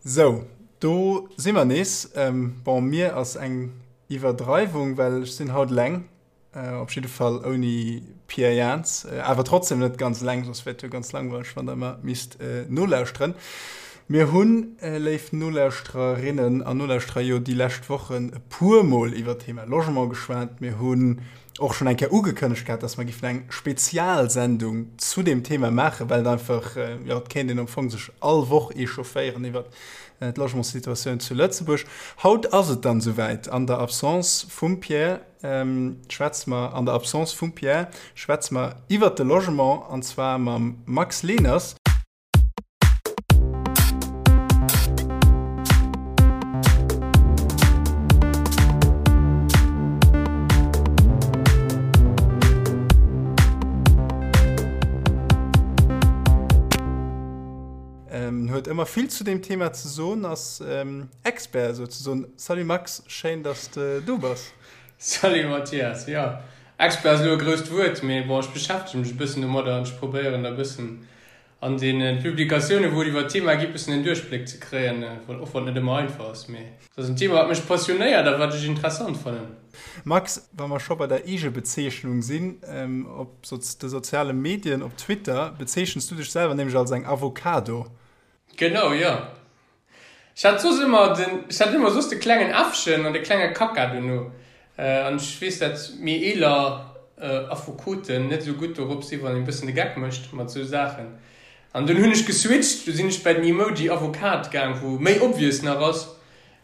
Sou, do si mer nees. Bon, mir ass eng Iwwerdreiwung, well ech sinn haut eleng. Op jidde Fall ouni Pierre Jans. Awer trotzdem net ganz eleng, soss wär et jo ganz langweileg, wann der ëmmer misst nolauschteren. Mir hunn, léif Nolauschtererinnen an Nolauschterer, jo déi lescht Wochen e puermol iwwer d'Thema Logement geschwat. Mir hunn och schonn eng Kéier ugekënnegt gehat, dass mer giffen eng Spezialsendung zu deem Thema maachen, well et einfach, jo, et kéint een am Fong sech all Woch echaufféieren iwwer d'Logementssituatioun zu Lëtzebuerg. Haut ass et dann esouwäit, an der Absence vum Pierre schwätze mer, an der Absence vum Pierre schwätze mer iwwert de Logement, an zwar mam Max Leners. Huet ëmmer vill zu deem Thema ze soen, ass Expert souzesoen. Salut Max, schéin dass de do bass. Salut Mathias, jo Expert ass elo e grousst Wuert, mee bon ech beschäftege mech e bëssen domadder an ech probéieren da bëssen an deene Publikatioune wou et iwwer d'Thema geet bëssen en Duerchbléck ze kréien, och wann et net ëmmer einfach ass, mee et ass en Thema wat mech passionéiert a wat ech interessant fannen. Max, wa mer scho bei der Eegebezeechnung sinn, op de soziale Medien, op Twitter bezeechens du dech selwer nämlech als eng Avocado. Genau, jo. Ech hat soss ëmmer den, ech hat ëmmer soss de klengen Äffchen an de klenge Kaka dono. An ech weess dat méi eeler Affekoten net esou gutt dorop si wann een e bëssen de Geck mécht mat esou Saachen. An dunn hunn ech geswitcht, du sinn ech bei den Emoji Avocat gaang, wou méi obvious nach ass,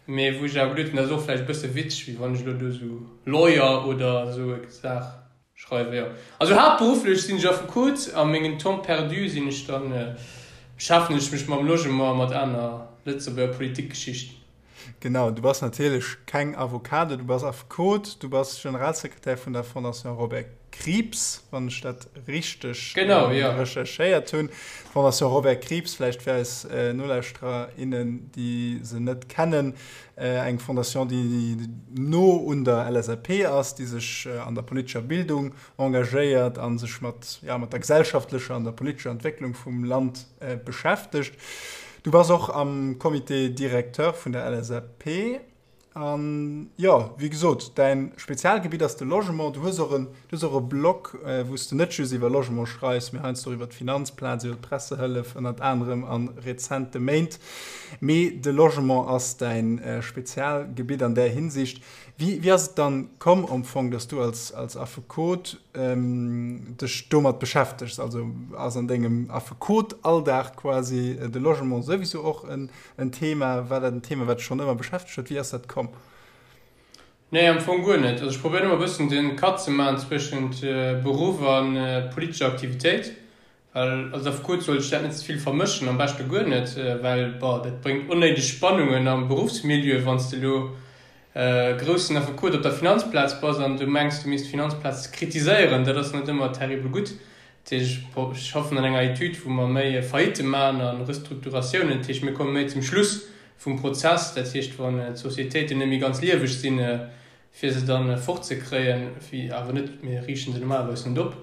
mee wou ech awer geduet hunn, dat ass och vläicht e bësse witzeg, wéi wann ech elo do esou Lawyer oder esou e Saach. Schreiwe jo. Also haaptberufflech sinn ech Affekot, a mengen Temps perdu sinn ech dann, beschäftegen ech mech mam Logement a mat aner Lëtzebuerger Politikgeschichten. Genau, du bass natierlech keng Avocado, du bass Affekot, du bass Generalsekretär vun der Fondation Robert Krieps, wann ech dat richteg genau, jo. recherchéiert hunn. D'Fondation Robert Krieps, vläicht fir eis Nolauschterer, innen, déi se net kennen, Eng Fondation, déi no un der LSAP ass, déi sech an der politescher Bildung engagéiert a sech mat, ja, mat der gesellschaftlecher an der politescher Entwécklung vum Land beschäftegt. Du bass och am Comité directeur vun der LSAP. An, jo, wéi gesot, däin Spezialgebitt ass de Logement. Du hues och en, du hues och e Blog, wou s de net just iwwer Logement schreifs, mee heiansdo och iwwer d'Finanzplaz, iwwer d'Pressehëllef ënnert anerem a rezente Méint. Mee de Logement ass däin Spezialgebitt an där Hinsicht. Wéi, wéi ass et dann komm am Fong, dass du als, als Affekot dech domat beschäftegs? Also ass an dengem Affekot-Alldag quasi de Logement souwisou och en, en Thema? War dat en Thema, wat dech schonn ëmmer beschäftegt huet? Wéi ass dat komm? Nee, am Fong guer net. Also ech probéieren ëmmer e bëssen de Cut ze maachen zwëschent Beruff a politescher Aktivitéit. Well als Affekot sollt ech dat net ze vill vermëschen, am beschte guer net, well, bon, dat bréngt onnéideg Spannungen am Beruffsmilieu, wann s de elo groussen Affekot op der Finanzplaz bass an du mengs, du misst d'Finanzplaz kritiséieren. Dat ass net ëmmer terribel gutt. Dat heescht, ech schaffen an enger Etüd, wou mer méi Faillite maachen a Restrukturatiounen. Dat heescht, mir komme méi zum Schluss vum Prozess. Dat heescht, wann d'Sociétéiten net méi ganz lieweg sinn, fir se dann fortzekréien, wéi awer net, mir riichten se normalerweis net op.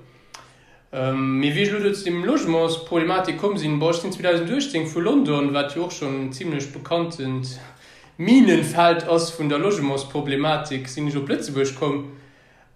Mee wéi ech elo do zu deem Logementsproblematik komm sinn, bon, ech sinn 2018 vu London, wat jo och schonn en zimlech bekanntent Minenfeld ass vun der Logementsproblematik, sinn ech op Lëtzebuerg komm.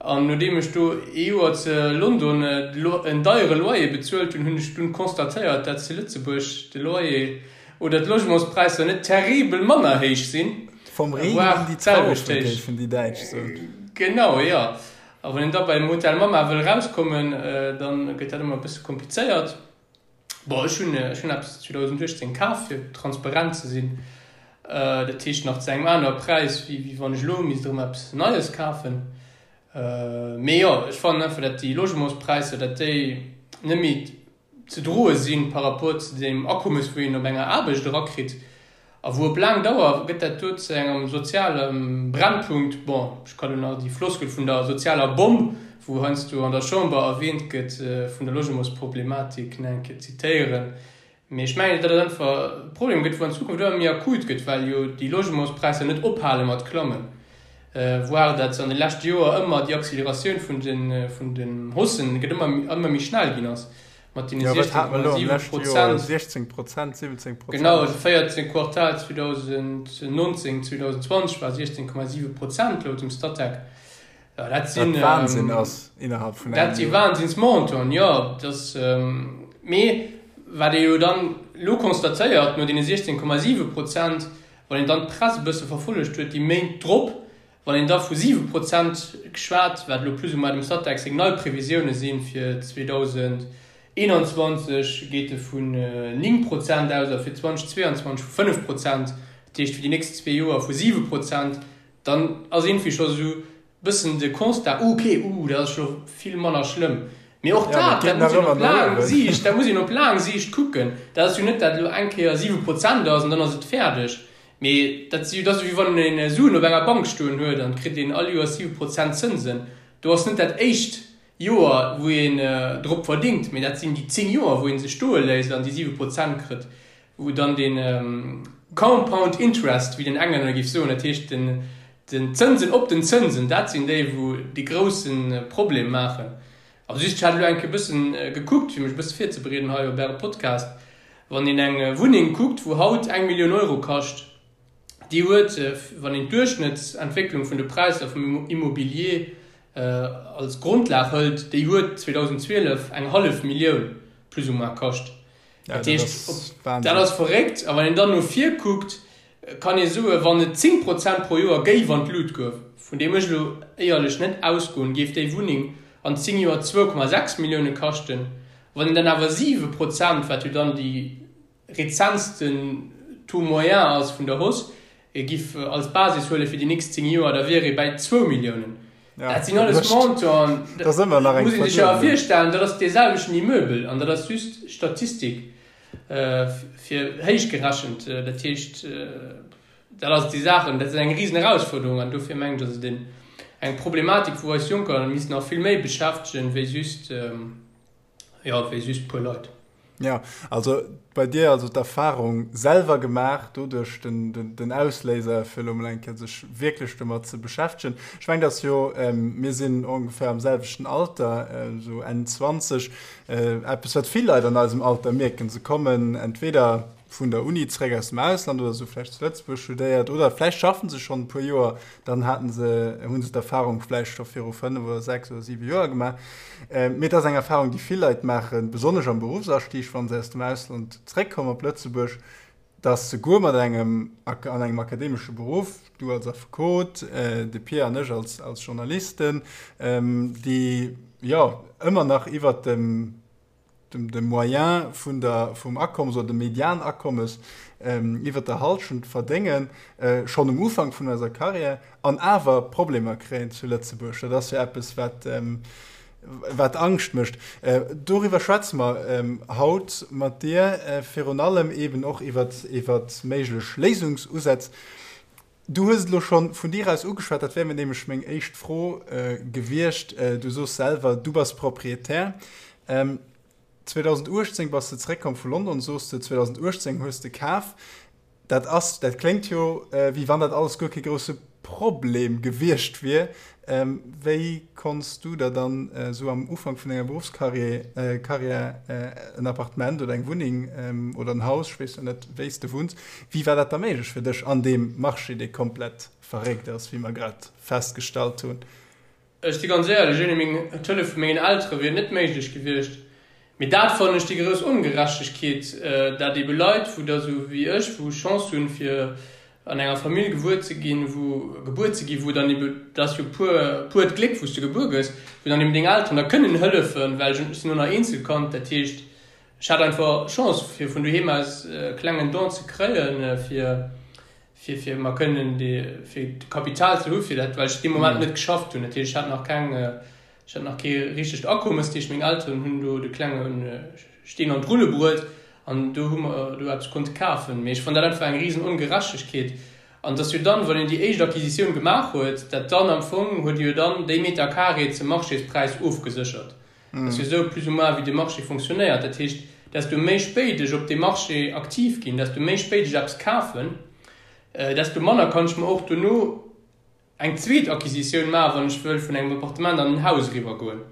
An nodeem ech do ee Joer ze London en deiere Loyer bezuelt hunn, hunn ech dunn constatéiert, dat zu Lëtzebuerg de Loyer oder d'Logementspräisser net terribel manner héich sinn, Vom Regen in die Traufe, géifen déi Däitsch soen. Genau, jo. A wann een da beim Hotel Mama wëll erauskommen, da gëtt dat ëmmer e bësse komplizéiert. Bon, ech hunn, ech hunn eppes 2018 kaf, fir transparent ze sinn. Dat heescht nach zu engem anere Präis, wéi, wéi wann ech elo misst erëm eppes Neies kafen. Mee jo, ech fannen einfach, datt déi Logementspräisser, datt déi net méi ze droe sinn par rapport zu deem Akommes, wou een op enger Aarbecht erakritt. A wou op laang Dauer gëtt dat do zu engem soziale Brennpunkt. Bon, ech kann elo nach déi Floskel vun der sozialer Bomm, wou heiansdo an der Chamber erwähnt gëtt, vun der Logementsproblematik nach eng Kéier zitéieren. Mee ech mengen, datt et einfach e Problem gëtt, wou an Zukunft ëmmer méi akut gëtt, well jo déi Logementspräisser net ophale mat klammen, voire datt an de leschte Joer ëmmer déi Acceleratioun vun den, vun den Haussen gëtt ëmmer, ëmmer méi schnell ginn ass. Mat deene 16,7 Prozent. 16 Prozent, 17 Prozent. Genau, also 14 Quartal 2019, 2020 war 16,7 Prozent laut dem Statec. Ja, dat sinn, Wat Wahnsinn ass innerhalb vun engem Dat si Wahnsinnsmontanten, jo. Dat, mee wat ee jo dann elo constatéiert, no deene 16,7 Prozent, wann een dann d'Press e bësse verfollegt huet déi Méint drop, Wann een da vu 7 Prozent geschwat, wat elo plus ou moins dem Statec seng nei Previsioune sinn fir 2021, geet e vun 9 Prozent aus a fir 2022 vu 5 Prozent, dat heescht fir déi nächst zwee Joer vu 7 Prozent, dann ass iergendwéi scho sou e bëssen de Constat, uh okay, uh dat ass scho vill manner schlëmm. Mee och dat, dat muss een op laang Siicht, dat muss een op laang Siicht kucken. Dat ass jo net, dat elo eng Kéier 7 Prozent ass an dann ass et fäerdeg. Mee dat si, dat ass ewéi wann een Suen op enger Bank stoen huet an et kritt een all Joers 7 Prozent Zënsen. Do ass net dat éischt Joer, wou een drop verdingt, mee dat sinn déi 10 Joer, wou ee se stoe léisst an déi 7 Prozent kritt, wou dann dee Compound Interest, wéi den Englänner géif soen, dat heescht den Zënsen op den Zënsen, dat sinn déi, wou dee grousse Problem maachen. Also just, ech hat elo eng Kéier e bëssen gekuckt, fir mech e bësse virzebereeden hei op Äre Podcast. Wann een eng Wunneng kuckt, wou haut eng Millioun Euro kascht, déi huet, wann een d'Duerchschnëttsentwécklung vun de Präisser vum Immobilier als Grondlag hëlt, déi huet 2012 eng hallef Millioun plus ou moins kascht. Dat heescht, dat ass verréckt. A wann een dann no vir kuckt, kann ee soen, wann et 10 Prozent pro Joer géif an d'Lut goen, vun deem ech elo éierlech net ausgoen, géif déi Wunneng an 10 Joer 2,6 Millioune kaschten. Wann een dann awer 7 Prozent, wat jo dann déi rezentsten Taux moyen ass vun der Hausse, giff als Basis huele fir déi nächst 10 Joer, da wier ee bäi zwou Milliounen. Dat sinn alles Montanten, dat muss ee sech awer virstellen, dat ass dee selwechten Immeubel an dat ass just Statistik fir héich gerechent. Dat heescht, dat ass déi Saachen, dat ass eng risen Erausfuerderung an dofir mengen ech, ass et eng Problematik, wou eis Jonker missten nach vill méi beschäftegen, wéi just, jo, wéi just puer Leit. Jo, also bei dir also d'Erfahrung selwer gemaach, doduerch den, den, den Ausléiser fir elo mol eng Kéier sech wierklech domat ze beschäftegen. Ech mengen, dass jo, mir sinn ongeféier am selwechten Alter, esou Enn 20, eppes wat vill Leit an eisem Alter mierken, se kommen entweder vun der Uni zeréck aus dem Ausland oder se hu vläicht zu Lëtzebuerg studéiert oder vläicht schaffen se schonn e puer Joer, dann haten se, hu se d'Erfahrung vläicht scho viru 5 oder 6 oder 7 Joer gemaach. Mee et ass eng Erfahrung, déi vill Leit maachen, besonnesch am Beruffsastieg, wa se aus dem Ausland zeréckkommen op Lëtzebuerg, dass se guer mat engem, an engem akademesche Beruff, du als Affekot, de Pia an ech als, als Journalisten, déi, jo, ëmmer nach iwwert dem, dem Moyen vun der, vum Akommes oder dem Medianakommes iwwert der Halschent verdéngen, schonn um Ufank vun eiser Carrière, an awer Problemer kréien zu Lëtzebuerg. Dat ass jo eppes, wat, wat Angscht mécht. Doriwwer schwätze mer haut mat dir, virun allem eeben och iwwert, iwwert méiglech Léisungsusätz. Du hues et elo scho vun dir aus ugeschwat, dat wär mir nämlech meng éischt Fro gewiescht. Du soos selwer, du bass Proprietär. 2018 bass de zeréckkomm vu London, soos de, 2018 hues de kaf. Dat ass, dat kléngt jo, wéi wann dat alles guer kee grousse Problem gewiescht wier. Wéi konns du der dann esou am Ufank vun denger Beruffscarrière Carrière en Appartement oder eng Wunneng oder en Haus, ech weess jo net wéi s de wunns, wéi war dat da méiglech fir dech an deem Marché, dee komplett verréckt ass, wéi mer grad festgestallt hunn? Ech si ganz éierlech, ouni meng d'Hëllef vu mengen Eltere wier et net méiglech gewiescht. Mee dat fannen ech déi grouss Ongerechtegkeet, dat ebe Leit, wou der esou wéi ech, wou Chance hunn, fir an enger Famill gewuer ze ginn, wou gebuer ze ginn, wou dann ebe, dat ass jo puer, puert Gléck, wou s de gebuer gëss, wou dann eben deng Elteren der kënnen hëllefen, well ech sinn och nach Eenzelkand, dat heescht, ech hat einfach Chance, fir vun doheem aus e klengen Don ze kréien, fir, fir, fir mer kënnen déi, fir d'Kapital ze hu fir dat, well ech dee Moment net geschafft hunn. Dat heescht, ech hat nach keng, Ech hat nach kee richtegt Akommes, dat heescht meng Elteren hunn do de klenge Steen an d'Rulle bruet an do hu mer do eppes konnte kafen. Mee ech fannen dat einfach eng risen Ongerechtegkeet. An et ass jo dann, wann een déi éischt Acquisitioun gemaach huet, dat dann am Fong huet ee jo dann déi Meter carré zum Marchéspräis ofgeséchert. Dat ass jo esou plus ou moins wéi de Marché fonctionnéiert. Dat heescht, desto méi spéit ech op deem Marché aktiv ginn, desto méi spéit ech eppes kafen, desto manner kann ech mer och dono eng zweet Acquisitioun maachen, wann ech wëll vun engem Appartement an en Haus eriwwer goen.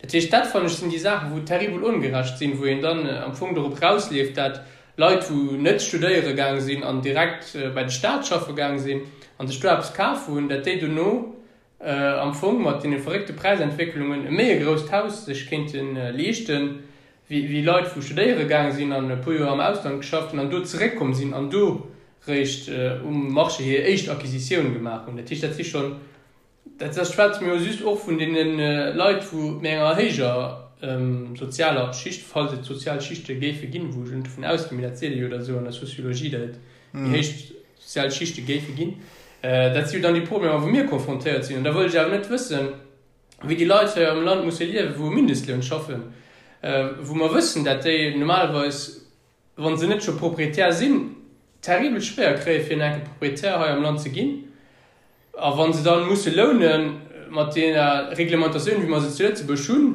Dat heescht, dat fannen ech sinn déi Saachen, wou terribel ongerecht sinn, wou een dann am Fong dorop rausleeft, dat Leit, wou net studéiere gaang sinn an direkt bei de Staat schaffe gaang sinn an sech do eppes kaf hunn, dat déi dono am Fong mat deene verréckte Präisentwécklungen e méi e grousst Haus sech kéinte leeschten, wéi Leit, wou studéiere gaang sinn an e puer Joer am Ausland geschafft hunn an do zeréckkomm sinn an do réischt um Marché hir éischt Acquisitioun gemaach hunn. Dat heescht, dat si schonn Dat dat schwätze mir jo just och vun deene Leit, wou méi enger héijer sozialer Schicht, falls et sozial Schichte géife ginn, wou ech elo net dovun ausginn, mee dat seet ee jo da sou an der Sociologie, datt et méi héich sozial Schichte géife ginn. Dat si jo dann déi Problemer, wou mir konfrontéiert sinn. An da wëll ech awer net wëssen, wéi déi Leit hei am Land musse liewen, wou um Mindestloun schaffen, wou mer wëssen, dat déi normalerweis, wa se net scho Proprietär sinn, terribel schwéier kréie fir en enke Proprietär hei am Land ze ginn. A wa se dann musse lounen, mat deeër Reglementatioun wéi mer se zu Lëtzebuerg hunn,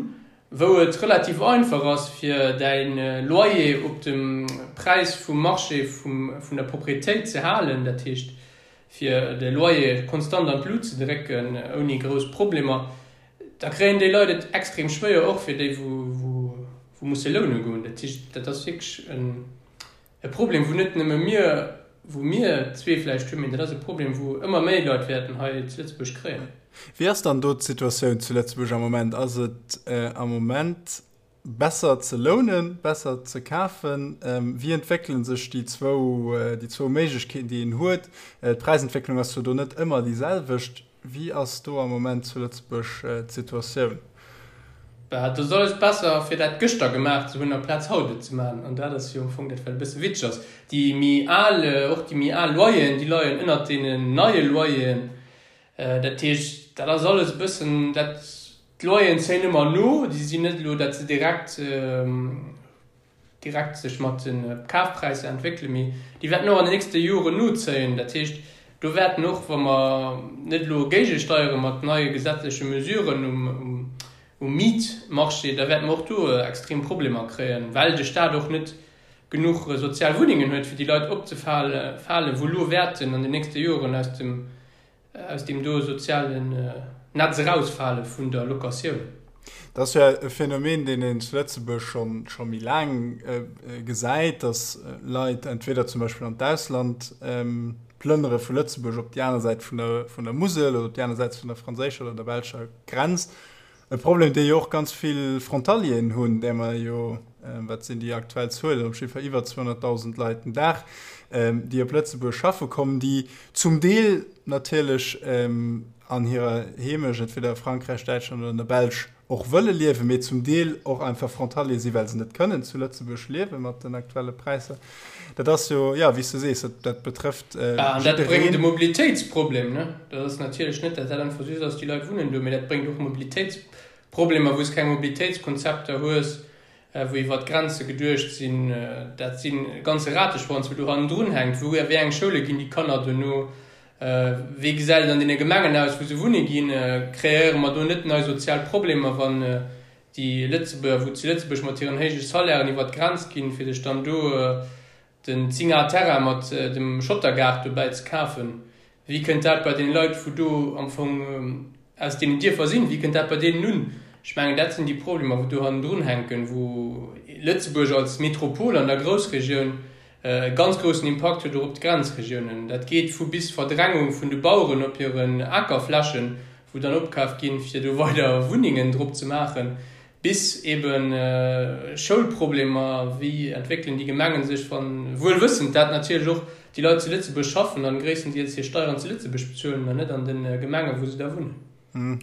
wou et relativ einfach ass fir däi Loyer op dem Präis vum Marché vun der Propriétéit ze halen, dat heescht fir de Loyer konstant an d'Lut ze drécken ouni grouss Problemer, da kréien déi Leit et extrem schwéier, och fir déi wou musse loune goen. Dat heescht, dat ass wierklech e Problem, wou net nëmme mir, wou mir zwee vläicht hunn, mee dat ass e Problem, wou ëmmer méi Leit wäerten hei zu Lëtzebuerg kréien. Wéi ass dann do d'Situatioun zu Lëtzebuerg am Moment? Ass et am Moment besser ze lounen, besser ze kafen? Wéi entwéckele sech déi zwou, déi zwou Méiglechkeeten, déi een huet? D'Präisentwécklung ass jo do net ëmmer déi selwecht. Wéi ass do am Moment zu Lëtzebuerg d'Situatioun? Bah, et ass alles besser, fir dat gëschter gemaach ze hunn, amplaz haut et ze maachen. An dat ass jo am Fong dat, wat e bësse witzeg ass. Déi méi al, och déi méi al Loyeren, déi leien ënnert deenen neie Loyeren. Dat heescht, dat ass alles e bëssen, dat, d'Loyeren zéien ëmmer no. Déi sinn net elo, datt se direkt, direkt sech mat de Kafpräisser entwéckelen, mee déi wäerten och an den nächste Joren nozéien. Dat heescht, do wäerten och, wa mer net elo géigesteiere mat neie gesetzleche Mesuren um Mietmarché, da wäerte mer och do extrem Problemer kréien, well de Stat och net genuch sozial Wunnengen huet, fir déi Leit opzefalen, wou elo wäerten an den nächste Joren aus dem aus deem do sozialen Netz erausfale vun der Locatioun. Dat ass jo e Phänomen, deen een zu Lëtzebuerg scho scho méi laang gesäit, datt Leit entweder zum Beispill an d'Ausland plënnere vu Lëtzebuerg op déi aner Säit vun der vun der Musel oder op déi aner Säit vun der franséischer oder der belscher Grenz. E Problem, dee jo och ganz vill Frontalieren hunn, där mer jo, wat sinn déi aktuell Zuelen, op jiddwer Fall iwwer 200.000 Leit den Dag, déi op Lëtzebuerg schaffe kommen, déi zum Deel natierlech an hirer Heemecht, entweder a Frankräich, Däitschland oder an der Belsch, och wëlle liewen, mee zum Deel och einfach Frontalier sinn, well se net kënnen zu Lëtzebuerg liewe mat den aktuelle Präisser. Dat ass jo, jo, wéi s du sees, dat betrëfft jiddereen. An dat bréngt e Mobilitéitsproblem, ne? Dat ass natierlech net, datt dat einfach just ass, déi Leit wunnen do, mee dat bréngt och Mobilitéitsproblemer, wou s keng Mobilitéitskonzepter hues, wou iwwer d'Grenze geduecht sinn. Dat si ganze Rateschwanz, wou do hannendrun hänkt. Wou, a wéi eng Schoule ginn déi Kanner dono? Wéi gesäit et an deene Gemengen aus, wou se wunne ginn? Kreéiere mer do net nei sozial Problemer, wann déi Lëtzebuerger, wou zu Lëtzebuerg mat hiren héije Salairen iwwer d'Grenz ginn, fir sech dann do den 10 Ar Terrain mat dem Schottergaart dobäi ze kafen, wéi kënnt dat bei deene Leit, wou do am Fong aus deenen Dierfer sinn, wéi kënnt dat bei deenen un? Ech mengen, dat sinn déi Problemer, wou do hannendrun hänken, wou Lëtzebuerg als Metropol an der Groussregioun e ganz groussen Impakt huet och op d'Grenzregiounen. Dat geet vu bis Verdrängung vun de Baueren op hiren Akerflächen, wou dann opkaaft ginn, fir do weider Wunnengen drop ze maachen, bis ebe Schoulproblemer, wéi entwéckelen déi Gemengen sech, wann, wuel wëssend, dat natierlech och déi Leit zu Lëtzebuerg schaffen an gréisstendeels hir Steieren zu Lëtzebuerg bezuelen an net an de Gemengen, wou se da wunnen.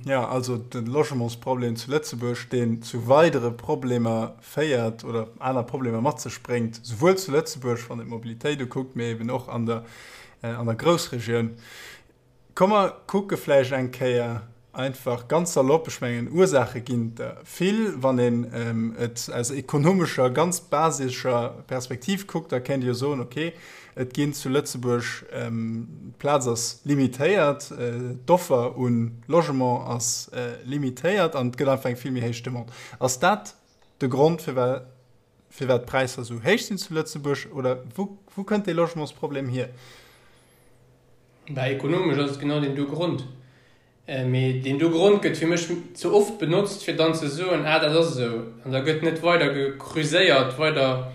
Jo, also de Logementsproblem zu Lëtzebuerg, deen zu weidere Problemer féiert oder aner Problemer mat sech bréngt, souwuel zu Lëtzebuerg, wann een d'Mobilitéit ukuckt, mee eben och an der, an der Groussregioun. Komm mer kucke vläicht eng Kéier einfach ganz salopp, ech mengen Ursaache ginn der vill, wann een et aus ekonomescher, ganz basescher Perspektiv kuckt, da kéint ee jo soen, okay, Et ginn zu Lëtzebuerg, d'Plaz ass limitéiert, d'Offer u Logement ass limitéiert an et gëtt einfach eng vill méi héich Demande. Ass dat de Grond, firwat d'Präisser esou héich sinn zu Lëtzebuerg oder wou kënnt dee Logementsproblem hier? Bah, ekonomesch ass et genau deen do Grond. Mee deen do Grond gëtt fir mech ze oft benotzt, fir dann ze soen, ah dat ass esou. An da gëtt net weider gekreuséiert, weider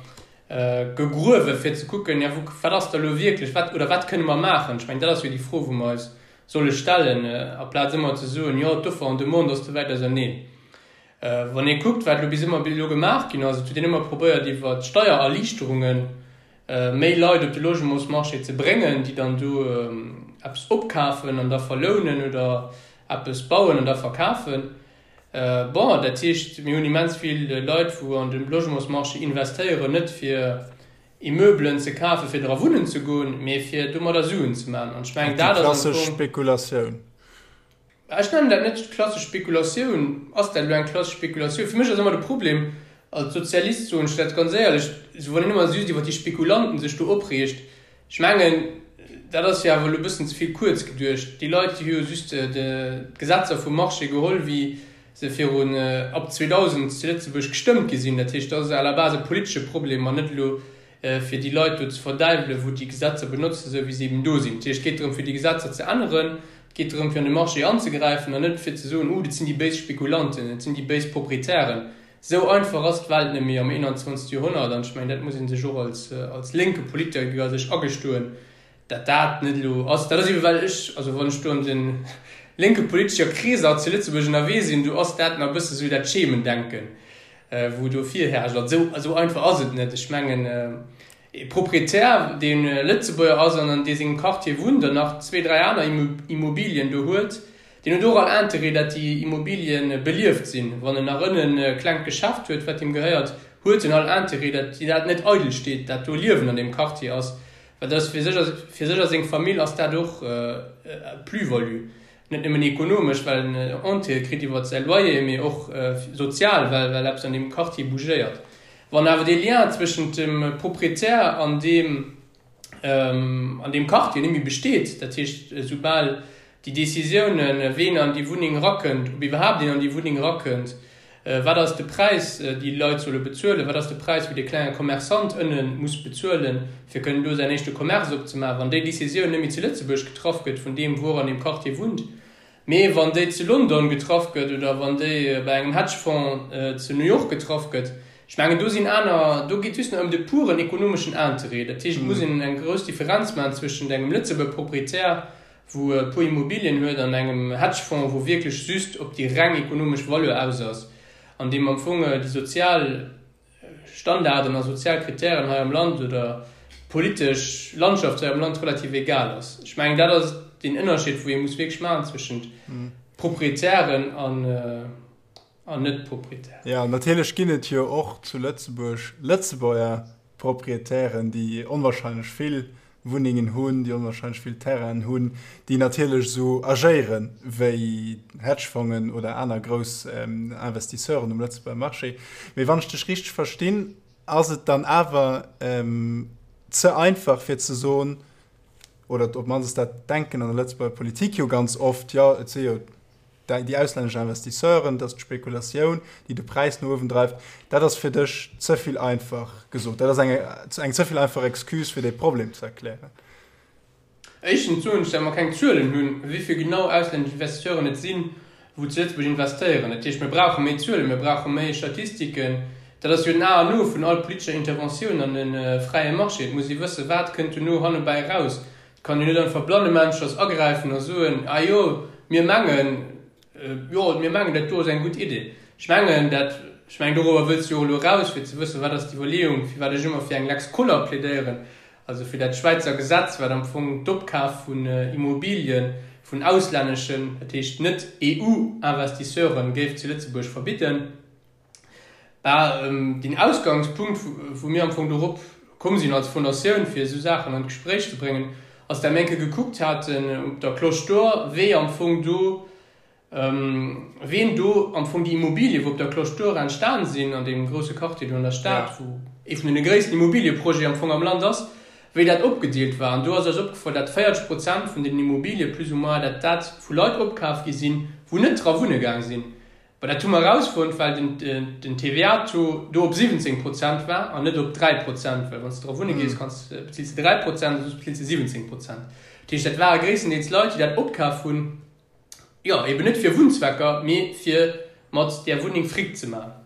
gegruewen, fir ze kucken, ja wou, wat ass da elo wierklech, wat, oder wat kënne mer maachen? Ech mengen, dat ass jo déi Fro, wou mer eis solle stellen, aplaz ëmmer ze soen, jo d'Offer an Demande ass ze wäit auserneen. Wann ee kuckt, wat elo bis ëmmer bis elo gemaach ginn ass, et huet een ëmmer probéiert iwwer Steiererliichterunge méi Leit op de Logementsmarché ze bréngen, déi dann do eppes opkafen an da verlounen oder eppes bauen an da verkafen. Bon, dat heescht, mir hunn immens vill Leit, wou an de Logementsmarché investéieren, net fir Immeubelen ze kafen, fir dra wunnen ze goen, mee fir domadder Suen ze maachen. An ech mengen, dat ass am Fong. Déi klassesch Spekulatioun. Ech nennen dat net klassesch Spekulatioun. Ass dat elo eng klassesch Spekulatioun? Fir mech ass ëmmer de Problem, als Sozialist soen ech dat ganz éierlech, esou wann een ëmmer just iwwer déi Spekulanten sech do opreegt, ech mengen, dat ass jo awer elo e bëssen ze vill kuerz geduecht. Déi Leit, déi hu jo just d'Gesetzer vum Marché geholl, wéi se virun, ab 2000 zu Lëtzebuerg gestëmmt gi sinn. Dat heescht, dat ass à la base e politesche Problem an net elo fir déi Leit do ze verdäiwelen, wou déi Gesetzer benotzen, esou wéi se eben do sinn. Dat heescht, et geet drëm, fir déi Gesetzer ze änneren, et geet drëm, fir an de Marché anzegräifen an net fir ze soen, Uh, dat sinn déi béis Spekulanten, dat sinn déi béis Proprietären. Esou einfach ass d'Welt net méi am 21. Joerhonnert an ech mengen, dat muss ee sech och als, als lénke Politiker sech agestoen, dat dat net elo ass. Dat ass ebe well ech, also wann ech do an de lénke politescher Kreeser zu Lëtzebuerg ënnerwee sinn, do ass dat nach e bësse sou dat Schemendenken, wou do virherrscht. An esou, esou einfach ass et net. Ech mengen, e Proprietär, dee Lëtzebuerger ass an an dee sengem Quartier wunnt an nach zwee, dräi aner Immobilien do huet, deen huet och all Interêt, dat déi Immobilien belieft sinn. Wann en nach ënnen e klengt Geschäft huet, wat him gehéiert, huet en all Interêt, dat dat net eidel steet, dat do Liewen an deem Quartier ass. Well dat ass fir sech a fir sech a seng Famill ass dat och e Plus-value. Net nëmmen ekonomesch, well en Entrée kritt iwwert säi Loyer, mee och sozial, well well eppes an deem Quartier bougéiert. Wann awer dee Lien zwëschent dem Proprietär an deem an deem Quartier net méi besteet, dat heescht esoubal déi Décisiounen, ween an déi Wunneng erakënnt, ob iwwerhaapt een an déi Wunneng erakënnt, wat ass de Präis, déi Leit solle bezuelen, wat ass de Präis, wou dee klenge Commerçant ënne muss bezuelen, fir kënnen do säin éischte Commerce opzemaachen, wann déi Décisioun net méi zu Lëtzebuerg getraff gëtt vun deem, wou och an deem Quartier wunnt, mee wann déi zu London getraff gëtt oder wann déi bei engem Hedgefonds zu New York getraff gëtt, ech mengen, do sinn aner, do geet just nach ëm de puren ekonomeschen Interêt. Dat heescht, et muss een eng grouss Differenz maachen zwëschent engem Lëtzebuerger Proprietär, wou e puer Immobilien huet an engem Hedgefonds, wou wierklech just op déi reng ekonomesch Valeur aus ass an deem am Fong déi sozial Standarden a sozial Kritären hei am Land oder d'politesch Landschaft hei am Land relativ egal ass. Ech mengen, dat ass deen Ënnerscheed, wou ee muss wierklech maachen zwëschent Proprietären an an Net-Proprietären. Jo, natierlech ginn et jo och zu Lëtzebuerg Lëtzebuerger Proprietären, déi onwahrscheinlech vill Wunnengen hunn, déi onwahrscheinlech vill Terrainen hunn, déi natierlech esou agéiere wéi Hedgefongen oder aner grouss Investisseuren um Lëtzebuerger Marché. Mee wann ech dech richteg verstinn, ass et dann awer ze einfach fir ze soen, oder op d'mannst dat Denken an der Lëtzebuerger Politik jo ganz oft, jo et si jo déi auslännesch Investisseuren, dat ass d'Spekulatioun, déi de Präis no uewen dreift, dat ass fir dech ze vill einfach gesot. Dat ass eng, eng ze vill einfach Excuse, fir dee Problem ze erklären. Éischtens soen ech, dat mer keng Zuelen hunn, wéi vill genau auslännesch Investisseuren et sinn, wou zu Lëtzebuerg investéieren. Dat heescht, mir brauche méi Zuelen, mir brauche méi Statistiken. Dat ass jo den A an O vun all politescher Interventioun an e fräie Marché. Et muss ee wëssen, wat kënnt dono hannebäi eraus. Et kann een net einfach blannemännschers agräifen a soen, Ah jo, mir mengen, jo, mir mengen, dat do ass eng gutt Idee. Ech mengen dat, ech mengen, dorobber wëlls de jo och elo eraus, fir ze wëssen, wat ass d'Iwwerleeung, firwat ech ëmmer fir eng Lex Koller plädéieren, also fir dat Schwäizer Gesetz, wat am Fong d'Opkaf vun Immobilien vun auslänneschen, dat heescht net EU-Investisseuren, géif zu Lëtzebuerg verbidden. Bah, deen Ausgangspunkt, wou mir am Fong dorop komm sinn als Fondatioun, fir esou Saachen an d'Gespréich ze bréngen, ass, dat mir eng Kéier gekuckt haten op der Cloche d'Or, wéi am Fong do, ween do am Fong déi Immobilien, wou op der Cloche d'Or entstan sinn, an deem grousse Quartier do an der Stad, wou ee vun deene gréissten Immobilieprojete am Fong am Land ass, wéi dat opgedeelt war. An do ass eis opgefall, dat 40 Prozent vun deenen Immobilie plus ou moins, dat dat vu Leit opkaf gi sinn, wou net dra wunne gaang sinn. Mä dat hu mer erausfonnt, well den TVA-Taux do op 17 Prozent war an net op 3 Prozent, well wann s de dra wunne gees, kanns, bezills de 3 Prozent a soss bezills de 17 Prozent. Dat heescht, dat ware gréisstendeels Leit, déi dat opkaf hunn. Jo, eben net fir Wunnzwecker, mee fir mat där Wunneng Fric ze maachen.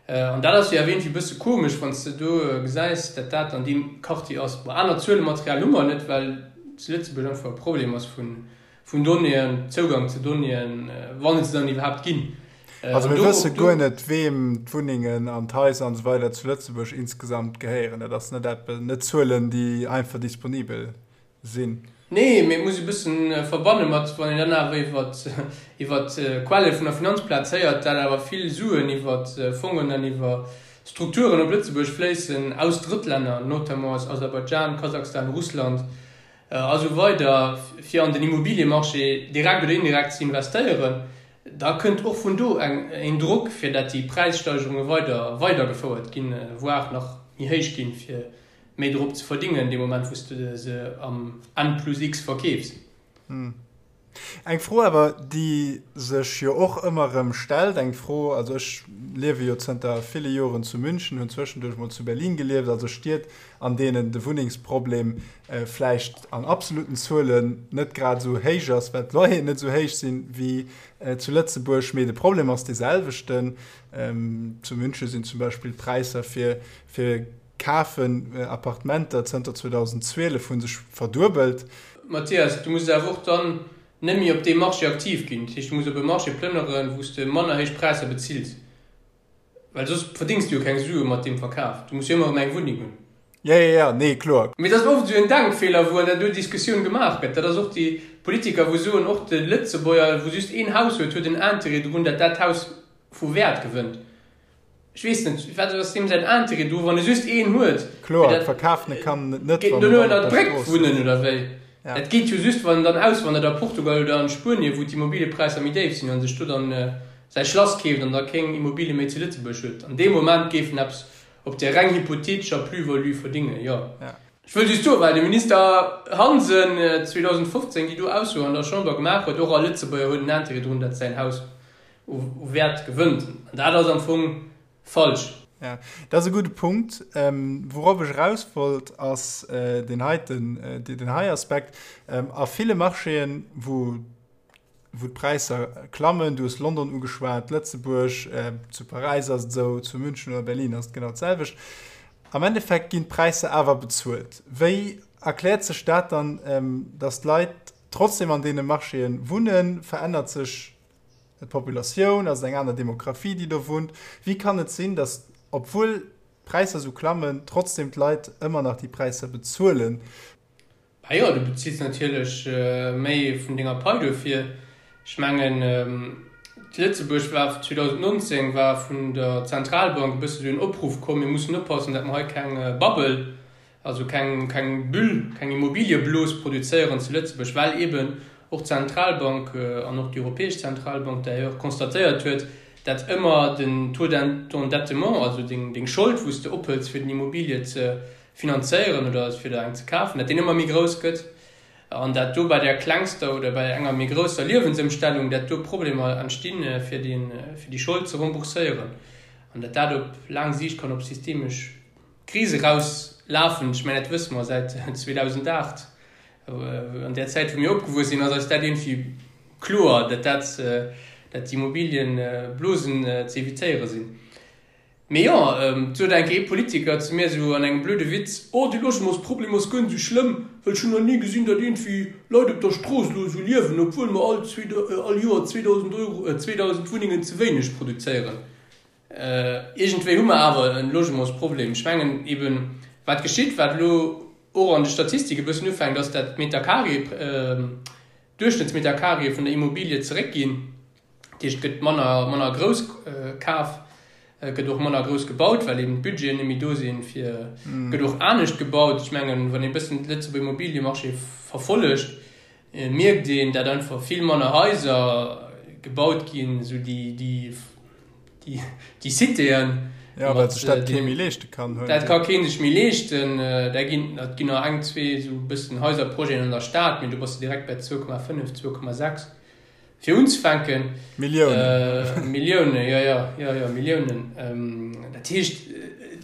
An dat ass jo awer iergendwéi e bësse komesch, wann s de do gesäis, dat dat an deem Quartier ass. Bon, aner Zuelematerial hu mer net, well zu Lëtzebuerg einfach e Problem ass vun Donnéeën, Zougang zu Donnéeën, wann et se dann iwwerhaapt ginn. Also mir wësse guer net, weem d'Wunnengen an d'Haiser an esou weider zu Lëtzebuerg insgesamt gehéieren. Dat ass net eppes, net Zuelen, déi einfach disponibel sinn. Nee, mee et muss e bëssen verbanne mat, wann een dann awer iwwer iwwer d'Quelle vun der Finanzplaz héiert, dat awer vill Suen iwwer Fongen an iwwer Strukturen op Lëtzebuerg fléissen aus Drëttlänner, notamment aus Aserbaidschan, Kasachstan, Russland a sou weider, fir an den Immobiliemarché direkt oder indirekt ze investéieren, da kënnt och vun do eng een Drock, fir dat déi Präissteigerunge weider weidergefouert ginn, voire nach méi héich ginn, fir méi drop ze verdingen dee Moment wou s de se am N plus X verkeefs. Eng Fro awer, déi sech jo och ëmmer erëm stellt, eng Fro, also ech liewe jo zënter ville Joren zu München, hunn zwëschenduerch mol zu Berlin gelieft, also Stied, an deenen de Wunnengsproblem vläicht an absoluten Zuelen net grad esou héich ass, well d'Loyeren net esou héich sinn wéi zu Lëtzebuerg, mee de Problem ass dee selwechten. Zu München sinn zum Beispill d'Präisser fir fir Kafen Appartementer zënter 2012 hu sech verduebelt. Mathias, du muss awer och dann net méi op deem Marché aktiv ginn. Dat heescht, du muss op e Marché plënneren, wou s de manner héich Präisser bezills, well soss verdéngs du jo keng Sue mat deem Verkaf. Du muss jo ëmmer erëm eng Wunneng hunn. Jo, jo, jo, nee, kloer. Mee dat ass oft esou en Denkfeeler, wou an där do Diskussioun gemaach gëtt. Dat ass och déi Politiker, wou soen, och de Lëtzebuerger, wou just een Haus huet, huet en Interêt drun, dat dat Haus vu Wäert gewënnt. Ech weess net, wat ass deem säin Intérêt do, wann e just een huet? Kloer, et verkafen e kann et net, wann en dann op der Strooss wunnen oder wéi? Dat geet jo just, wann en dann auswandert a Portugal oder an Spuenien, wou d'Immobiliepräisser méi déif sinn, an sech do dann säi Schlass keeft an da kéng Immobilie méi zu Lëtzebuerg huet. An deem Moment géif en eppes op där reng hypothetescher Plus-value verdingen, jo. Ech wëll just soen, well de Minister Hansen 2015 déi do Ausso an der Chamber gemaach huet, och all Lëtzebuerger huet en Intérêt drun, datt säin Haus u Wäert gewënnt. An dat ass am Fong falsch. Ja, dat ass e gudde Punkt. Wourop ech eraus wollt, ass deen heiten, deen hei Aspekt. A ville Marchéen, wou, wou d'Präisser klammen, du hues London ugeschwat, Lëtzebuerg, zu Paräis ass et esou, zu München oder Berlin ass et genau d'selwecht, am Endeffekt ginn d'Präisser awer bezuelt. Wéi erkläert sech dat dann, datt d'Leit trotzdem an deene Marchéen wunnen? Verännert sech D'Populatioun, ass et eng aner Demografie, déi do wunnt? Wéi kann et sinn, datt, obwuel d'Präisser esou klammen, trotzdem d'Leit ëmmer nach déi Präisser bezuelen? Bah jo, du bezills natierlech méi vun denger Pai dofir. Ech mengen, Lëtzebuerg war 2019 war vun der Zentralbank e bësse sou en Opruff komm, mir mussen oppassen, datt mer hei keng Bubble Also keng, keng Bulle, keng Immobiliëblos produzéieren zu Lëtzebuerg, well eeben och d'Zentralbank an och déi Europäesch Zentralbank d'ailleurs constatéiert huet, dat ëmmer den Taux d'endettement, also deng, deng Schold, wou s de ophëls fir den Immobilie ze finanzéieren oder fir der eng ze kafen, dat deen ëmmer méi grouss gëtt an dat do bei der klengster oder bei enger méi grousser Liewensëmstellung, dat do Problemer entstinn, fir deen, fir déi Schold ze rembourséieren an dat dat op laang Siicht kann op systemesch Kris eraus lafen. Ech mengen, dat wësse mer säit 2008. An där Zäit, wou mir opgewuess sinn, ass eis dat iergendwéi kloer, datt dat, datt d'Immobiliëblosen ze evitéiere sinn. Mee jo, et sot eng Kéier ee Politiker zu mir esou an engem blöde Witz, Oh, de Logementsproblem ass guer net esou schlëmm, well ech hunn nach ni gesinn, datt iergendwéi Leit op der Strooss elo esou liewen, obwuel mer all all Joer 2.000 Euro, 2.000 Wunnengen ze wéineg produzéieren. Iergendwéi hu mer awer e Logementsproblem. Ech mengen eben, wat geschitt, wat elo och an de Statistike e bëssen ufänkt, ass, dat d'Metercarré, d'Duerchschnëttsmetercarréë vun der Immobilie zeréckginn. Dat heescht, et gëtt manner, manner grouss kaf, et gëtt och manner grouss gebaut, well eben d'Budgeten net méi do sinn, fir, et gëtt och anescht gebaut. Ech mengen, wann ee e bëssen de Lëtzebuerger Immobiliemarché verfollegt, Et mierkt een, dat einfach vill manner Haiser gebaut ginn, esou déi, déi, déi, déi Citéen. Ja, well sech dat kee méi leeschte kann. Dat ka kee sech méi leeschten. Da ginn, et ginn nach eng, zwee esou e bëssen Haiserprojeten an der Stad, mee do bass de direkt bei 2,5, 2,6 fir unzefänken. Milliounen. Milliounen, jo, jo, jo, jo, Milliounen. Dat heescht,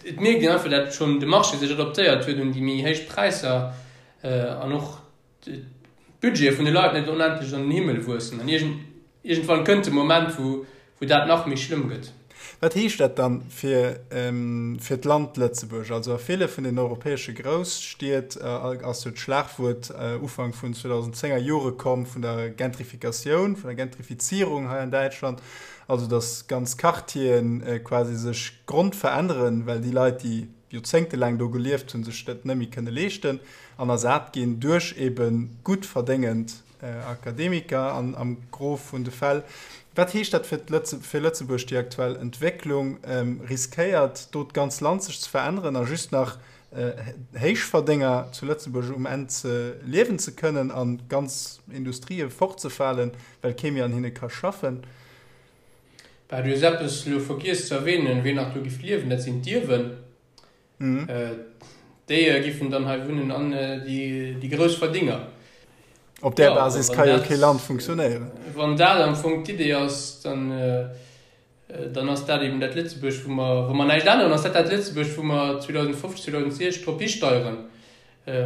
et mierkt een einfach, dat schonn de Marché sech adaptéiert huet un déi méi héich Präisser an och d'Budgete vun de Leit net onendlech an den Himmel wuessen. An iergend. Iergendwann kënnt de Moment, wou wou dat nach méi schlëmm gëtt. Wat heescht dat dann fir fir d'Land Lëtzebuerg? Also a ville vun den europäesche Grousstied ass jo d'Schlagwuert Ufank vun 2010er Jore komm vun der Gentrifikatioun, vun der Gentrifizierung hei an Däitschland, also datt ganz Quartieren quasi sech grondveränneren, well déi Leit, déi joerzéngtelaang do gelieft hunn, sech dat net méi kënne leeschten an ersat ginn duerch ebe gutt verdéngend Akademiker an am Gros vun de Fäll. Wat heescht dat fir fir Lëtzebuerg, déi aktuell Entwécklung? Riskéiert do d'ganz Land sech ze veränneren a just nach Héichverdénger zu Lëtzebuerg um Enn ze liewen ze kënnen a ganz Industrië fortzefalen, well kee méi an hinne ka schaffen? Bah, du hues eppes elo vergiess ze erwähnen, wien nach do giff liewen, dat sinn d'Ierwen. Déi giffen dann hei wunnen an déi grouss Verdinger. Op där Basis ka jo kee Land funktionéieren. Wann dat am Fong d'Idee ass, dann dann ass dat eben dat Lëtzebuerg, wou mer, wa mer näischt änneren, ass dat dat Lëtzebuerg, wou mer 2050, 2060 drop histeieren,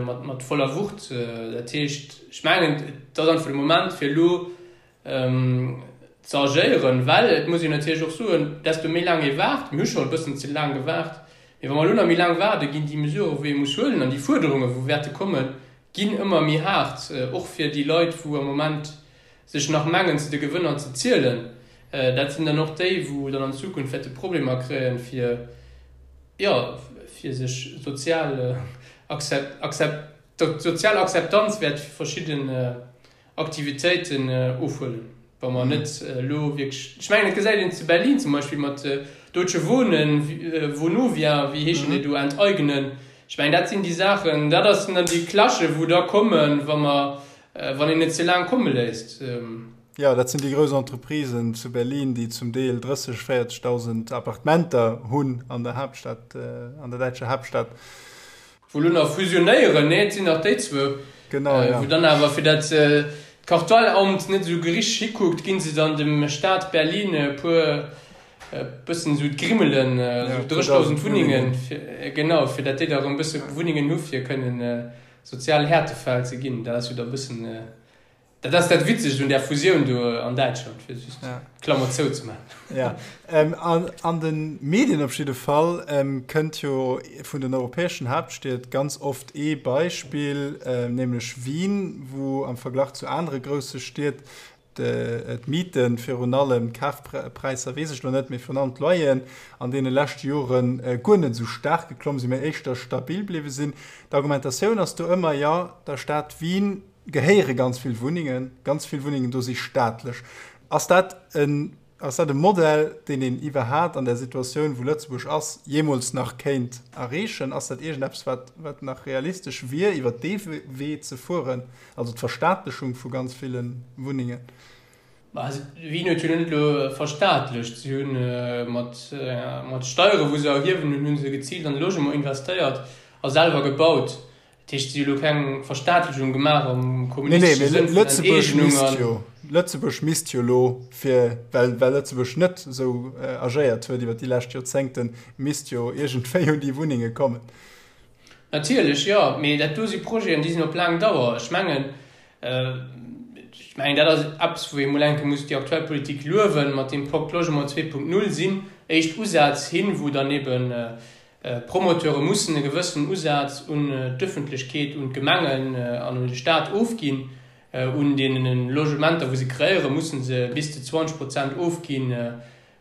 mat mat voller Wucht. Dat heescht, ech mengen, et ass einfach de Moment, fir elo ze agéieren, well et muss een natierlech och soen, desto méi laang ee waart, mir hu scho e bëssen ze laang gewaart, mee wa mer elo nach méi laang waarden, ginn déi Mesuren, wou ee muss huelen, an déi Fuerderungen, wou wäerte kommen, ginn ëmmer méi haart, och fir déi Leit, wou am Moment sech nach mengen, zu de Gewënner ze zielen. Dat sinn dann och déi, wou dann an Zukunft wäerte Problemer kréien, fir, jo, fir sech sozial Akzept, d'sozial Akzeptanz wäert verschidden Aktivitéiten ofhuelen, wa mer net elo wierklech, ech mengen, et gesäit een zu Berlin zum Beispill mat Deutsche Wohnen, Vonovia, wéi heeschen déi do, enteignen. Ech mengen, dat sinn déi Saachen, dat ass dann déi Clashe wou da kommen, wa mer, wann een et ze laang komme léisst. Jo, dat sinn déi grouss Entreprisen zu Berlin, déi zum Deel 30, 40.000 Appartementer hunn an der Haaptstad, an der däitscher Haaptstad. Wou elo nach fusionéieren, nee, et sinn nach déi zwou, Genau, ja. Wou dann awer, fir dat d'Kartellamt net esou gericht hikuckt, ginn se dann dem Staat Berlin e puer, e bëssen esou d'Grimmelen, esou 30.000 Wunnengen, genau, fir dat déi da erëm e bësse Wunnengen hu fir kënnen sozial Härtefäll ze ginn. Dat ass jo da e bëssen. Dat ass dat Witzegt un där Fusioun do an Däitschland, fir just d'Klammer zou ze maachen. Ja, an de Medien op jidde Fall kënnt jo vun den europäeschen Haaptstied ganz oft ee Beispill, nämlech Wien, wou am Verglach zu anere grousse Stied d'Mieten, virun allem d'Kafpräisser weess ech elo net, mee virun allem d'Loyeren an deene leschte Jore guer net esou staark geklomm sinn, mee éischter stabil bliwwe sinn. D'Argumentatioun ass do ëmmer, jo, der Stad Wien gehéiere ganz vill Wunnengen, ganz vill Wunnengen do si staatlech. Ass dat en, ass dat e Modell, deen een iwwerhaat an der Situatioun, wou Lëtzebuerg ass, jeemools nach kéint erreechen? Ass dat iergendeppes, wat, wat nach realistesch wier, iwwer dee Wee ze fueren, also d'Verstaatlechung vu ganz ville Wunnengen? Bah, Wien huet jo net elo verstaatlecht. Si hunn mat, mat Steiere wou se erhiewen hunn, hu se geziilt an de Logement investéiert a selwer gebaut. Dat heescht, si hu lo keng Verstaatlechung gemaach am kommunistesche Sënn vun Enteegnung an. Lëtzebuerg misst jo elo, fir, well, well Lëtzebuerg net esou agéiert huet iwwer déi lescht Joerzéngten, misst jo iergendwéi un déi Wunnenge kommen. Natierlech, jo. Mee dat do si Projeten, déi sinn op laang Dauer. Ech mengen, ech mengen, dat ass eppes, wou ee mol eng Kéier muss déi aktuell Politik luewen, mat deem Pacte Logement 2.0 sinn éischt Usätz hin, wou dann eben D'Promoteure mussen e gewëssenen Usaz un d'Ëffentlechkeet, un d'Gemengen an un de Staat ofginn. Un deene Logementer, wou se kreéieren, musse se bis zu 20 Prozent ofginn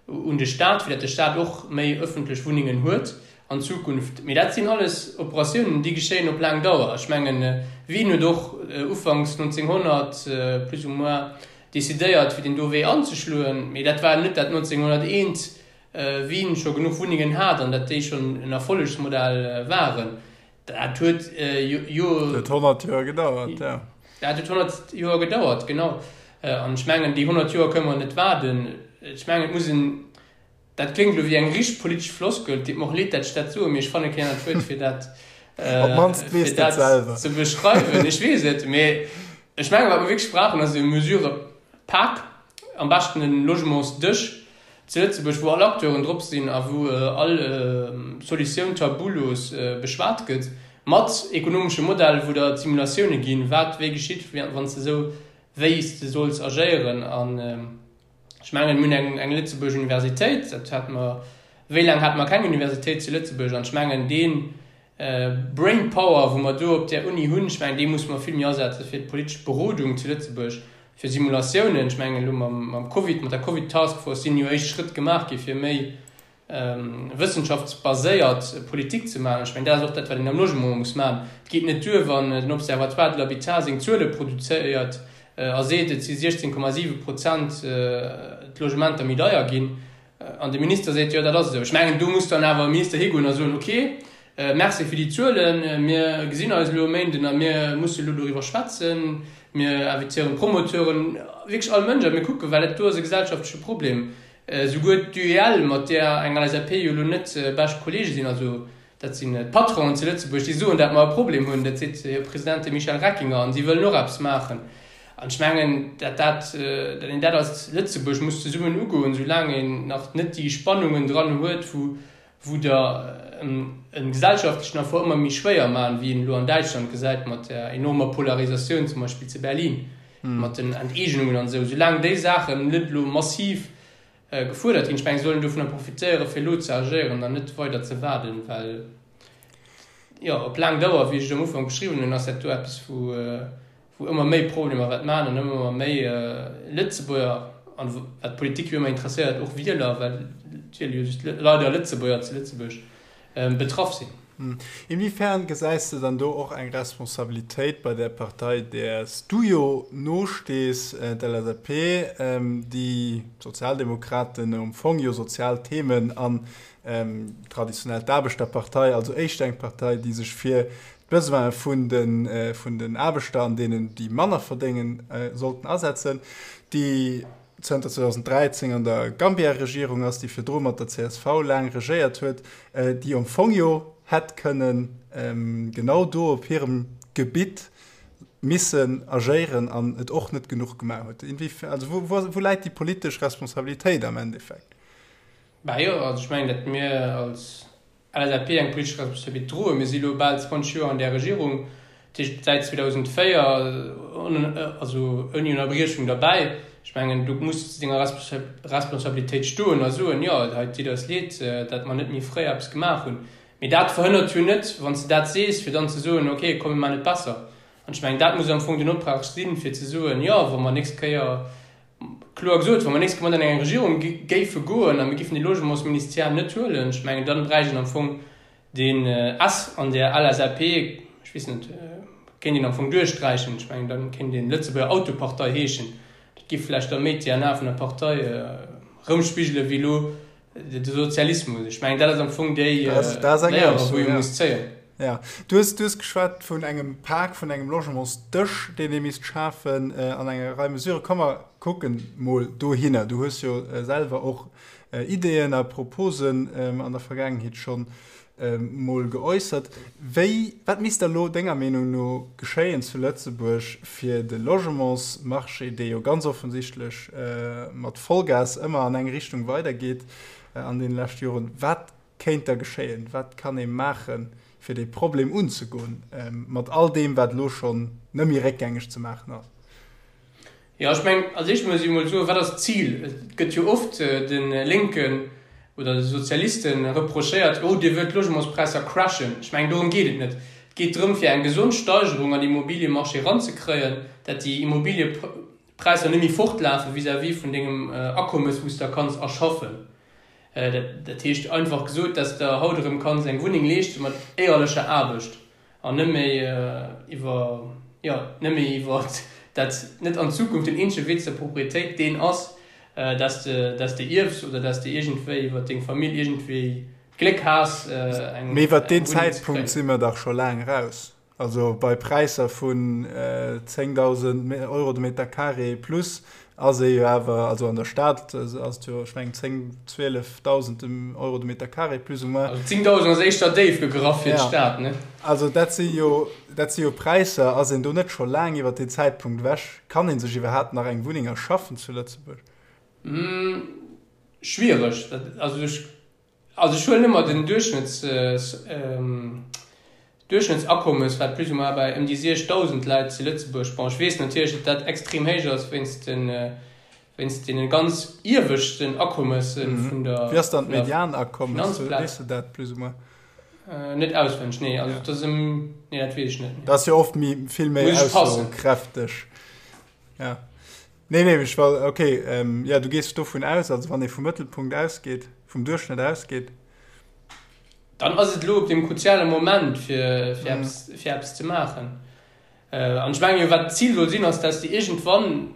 un de Staat, fir datt de Staat och méi ëffentlech Wunnengen huet an Zukunft. Mee dat sinn alles Operatiounen, déi geschéien op laang Dauer. Ech mengen, Wien huet och ufanks 1900 plus ou moins decidéiert, fir deen do Wee anzeschloen? Mee dat war net dat 1901 Wien scho genuch Wunnengen hat an dat déi schonn en Erfollegsmodell waren. Dat huet jo. Dat huet 100 Joer gedauert, jo. Dat huet 100 Joer gedauert, genau. An ech mengen, déi 100 Joer kënne mer net waarden. Ech mengen, et muss en, dat kléngt elo wéi eng richteg politesch Floskel, et deet mer och leed, dat ech dat soen, mee ech fanne keen anert Wuert, fir dat, fir dat ze beschreiwen. Ech weess et, mee ech mengen, wat mer wierklech brauchen, ass e Mesurëpak, am beschten e Logementsdësch, Zu Lëtzebuerg, wou all Acteuren drop sinn a wou all Solutioun tabulos beschwat gëtt, mat ekonomesche Modell, wou der d'Simulatioune ginn, wat wéi geschitt, wann s de esou wéi s de solls agéieren. Ech mengen, mir hunn eng, eng Lëtzebuerg Universitéit, dat hate mer, wéi laang hate mer keng Universitéit zu Lëtzebuerg? An ech mengen, dee Brainpower, wou mer do op där Uni hunn, ech mengen, dee musse mer vill méi asetze fir d'politesch Berodung zu Lëtzebuerg, fir Simulatiounen. Ech mengen, elo mam, mam Covid, mat der Covid-Taskforce sinn jo éischt Schrëtt gemaach gi fir méi wëssenschaftsbaséiert Politik ze maachen. Ech mengen, dat ass och dat, wat een am Logement muss maachen. Et geet net duer, wann den Observatoire de l'habitat seng Zuele produzéiert a seet, et si 16,7 Prozent d'Logementer méi deier ginn, an de Minister seet, jo, dat ass esou. Ech mengen, do muss dann awer e Minister higoen a soen, okay, merci fir déi Zuelen, mir gesinn eis elo e Méinden a mir musse elo doriwwer schwätzen, mir invitéieren d'Promoteuren, wierklech all Mënsch, a mir kucken, well dat do ass e gesellschaftleche Problem. Esouguer d'UEL, mat där eng LSAP jo elo net bescht Kollege sinn, also dat sinn d'Patronen zu Lëtzebuerg, déi soen, dat mer e Problem hunn, dat seet hir President, de Michel Reckinger, an si wëllen och eppes maachen. An ech mengen, dat dat, dat een dat als Lëtzebuerg muss zesummen ugoen, soulaang een nach net déi Spannungen dran huet, wou wou der e gesellschaftlechen Effort ëmmer méi schwéier maachen, wéi een elo an Däitschland gesäit mat där enormer Polarisatioun zum Beispill zu Berlin, mat den Enteegnungen an esou. Soulaang déi Saachen net elo massiv gefuerdert ginn, ech mengen, soll een dovunner profitéieren, fir elo ze agéieren an net weider ze waarden, well jo op laang Dauer, wéi ech et am Ufank beschriwwen hunn, ass dat do eppes, wou wou ëmmer méi Problemer wäert maachen an ëmmer méi Lëtzebuerger, an wat d'Politik jo ëmmer interesséiert, och Wieler, well et wiele jo just leider Lëtzebuerger zu Lëtzebuerg, betraff sinn. Inwiefern gesäis de dann do och eng Responsabilitéit bei där Partei, där s du jo nostees, d'LSAP, déi d'Sozialdemokraten am Fong jo sozial Themen an traditionell d'Aarbechterpartei, also éischter eng Partei, déi sech fir d'Besoine vun den Aarbechter an deenen, déi manner verdéngen, sollten asetzen, déi zënter 2013 an der Gambia-Regierung ass, déi virdru mat der csv laang regéiert huet, déi am Fong jo hätt kënnen genau do op hirem Gebitt missen agéieren an et och net genuch gemaach huet. Also wou läit déi politesch Responsabilitéit am Endeffekt? Bah jo, also ech mengen, datt mir als LSAP eng politesch Responsabilitéit droen. Mir si elo bal 20 Joer an där Regierung, dat heescht säit 2004, also ouni Ënnerbriechung derbäi. Ech mengen, do muss de zu denger Responsabilitéit stoen a soen, jo, hei et deet eis leed, datt mer net méi fréi eppes gemaach hunn. Mee dat verhënnert jo net, wann s de dat sees, fir dann ze soen, okay, komm mir maachen et besser. An ech mengen, dat muss am Fong den Optrag sinn, fir ze soen, jo, wa mer nächst Kéier Kloer gesot, wa mer nächst Kéier mat an eng Regierung géife goen a mir géifen de Logementsministère net huelen, ech mengen, dann bräicht een am Fong deen S an der LSAP, ech weess net, kéint een am Fong duerchsträichen. Ech mengen, da kéint een Lëtzebuerger Autopartei heeschen. Dat géif vläicht da méi d'DNA vun der Partei erëmspigele wéi elo De Sozialismus, ech mengen, dat ass am Fong déi Léier, wou ee muss zéien. Ja, du hues, du hues geschwat vun engem Pak, vun engem Logementsdësch, deen ee misst schafen an enger Rei Mesuren. Komm mer kucken mol dohinner. Du hues jo selwer och Ideeën a Proposen an der Vergaangenheet schonn mol geäussert. Wéi, wat misst da lo denger Meenung no geschéien zu Lëtzebuerg, fir de Logementsmarché, dee jo ganz offensichtlech mat Vollgas ëmmer an eng Richtung weidergeet an deene leschte Joren, wat kéint da geschéien? Wat kann ee maachen, fir dee Problem unzegoen, mat all deem, wat elo schonn net méi réckgängeg ze maachen ass? Jo, ech mengen, als éischt muss ee mol soen, wat ass d'Zil? Et gëtt jo oft de Lénken oder de Sozialiste reprochéiert, oh, Dir wëllt d'Logementspräisser crashen. Ech mengen, dorëm geet et net. Et geet drëm, fir eng gesond Steigerung an Immobiliemarché eranzekréien, dat déi Immobiliepräisser net méi fortlafe vis-à-vis vun dengem Akommes, wou s de kanns erschaffen. Dat heescht einfach gesot, dass de haut erëm kanns eng Wunneng leeschte mat éierlecher Aarbecht. An net méi iwwer, jo, net méi iwwer dat net an Zukunft den eenzege Wee zur Proprietéit deen ass, dass de, dass de ierfs oder dass de iergendwéi iwwer deng Famill iergendwéi d'Gléck has, eng Mee iwwer deen Wunneng ze Zäitpunkt si kréien. mer dach scho laang eraus. Also bei Präisser vun 10.000 Euro de Meter carré plus ass ee jo awer, also an der Stad ass et jo, ech mengen 10, 12.000 Euro de Meter carré plus ou moins. Also 10.000 ass éischter déif gegraff fir d'Stad, ne? Also dat si jo, dat si jo Präisser. Ass een do net scho laang iwwer deen Zäitpunkt ewech? Kann ee sech iwwerhaapt nach eng Wunneng erschaffen zu Lëtzebuerg? Schwiereg. Also ech Also ech huelen ëmmer den Duerchschnëtts, Duerchschnëttsakommes, wat plus ou moins bei ëm déi 6.000 läit zu Lëtzebuerg. Bon, ech weess natierlech, datt dat extrem héich ass wéinst de. Wéinst deene ganz ieweschten Akommesse vun der Wéi ass dann d'Medianakommes? Finanzplaz. Weess de dat plus ou moins? Net auswenneg, nee. Also dat ass ëm, nee, dat weess ech net. Dat ass jo oft méi, vill méi Muss ech passen. aussokräfteg. Ja. Nee, nee, ech war, okay, ja, du gees dovun aus, also wann ee vum Mëttelpunkt ausgeet, vum Duerchschnëtt ausgeet. Dann ass et elo op deem kruziale Moment, fir, fir eppes, fir eppes ze maachen. An ech mengen jo, wat d'Zil soll sinn, ass, dass de iergendwann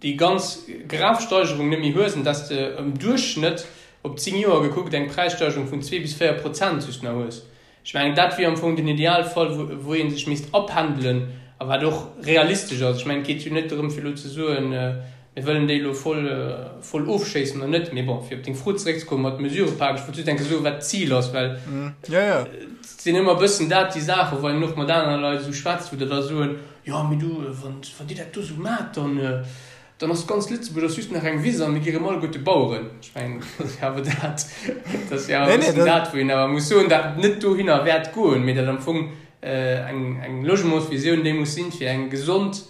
déi ganz grav Steigerung net méi hues an dass de am Duerchschnëtt op 10 Joer gekuckt eng Präissteigerung vun 2 bis 4 Prozent just nach hues. Ech mengen, dat wier am Fong den Idealfall, wou ee sech misst apendelen a wat och realistesch ass. Ech mengen, et geet jo net drëm, fir elo ze soen, Mir wëllen déi elo voll, voll ofschéissen oder net. Mee bon, fir op deng Fro zeréckzekommen mat Mesurëpak, ech wollt just eng Kéier soen, wat d'Zil ass, well et sinn ëmmer e bëssen dat déi Saachen, wou een och mat anere Leit esou schwätzt, wou der da soen, jo, mee du, wann, wann Dir dat do esou maacht, dann, dann ass ganz Lëtzebuerg ass just nach eng Wiss a mir gi rëm alleguerte Baueren. Ech mengen, dat ass jo awer dat, dat ass jo awer e bëssen dat, wou een awer muss soen, dat net dohinner wäert goen, mee dat am Fong eng, eng Logementsvisioun déi muss sinn, fir eng gesond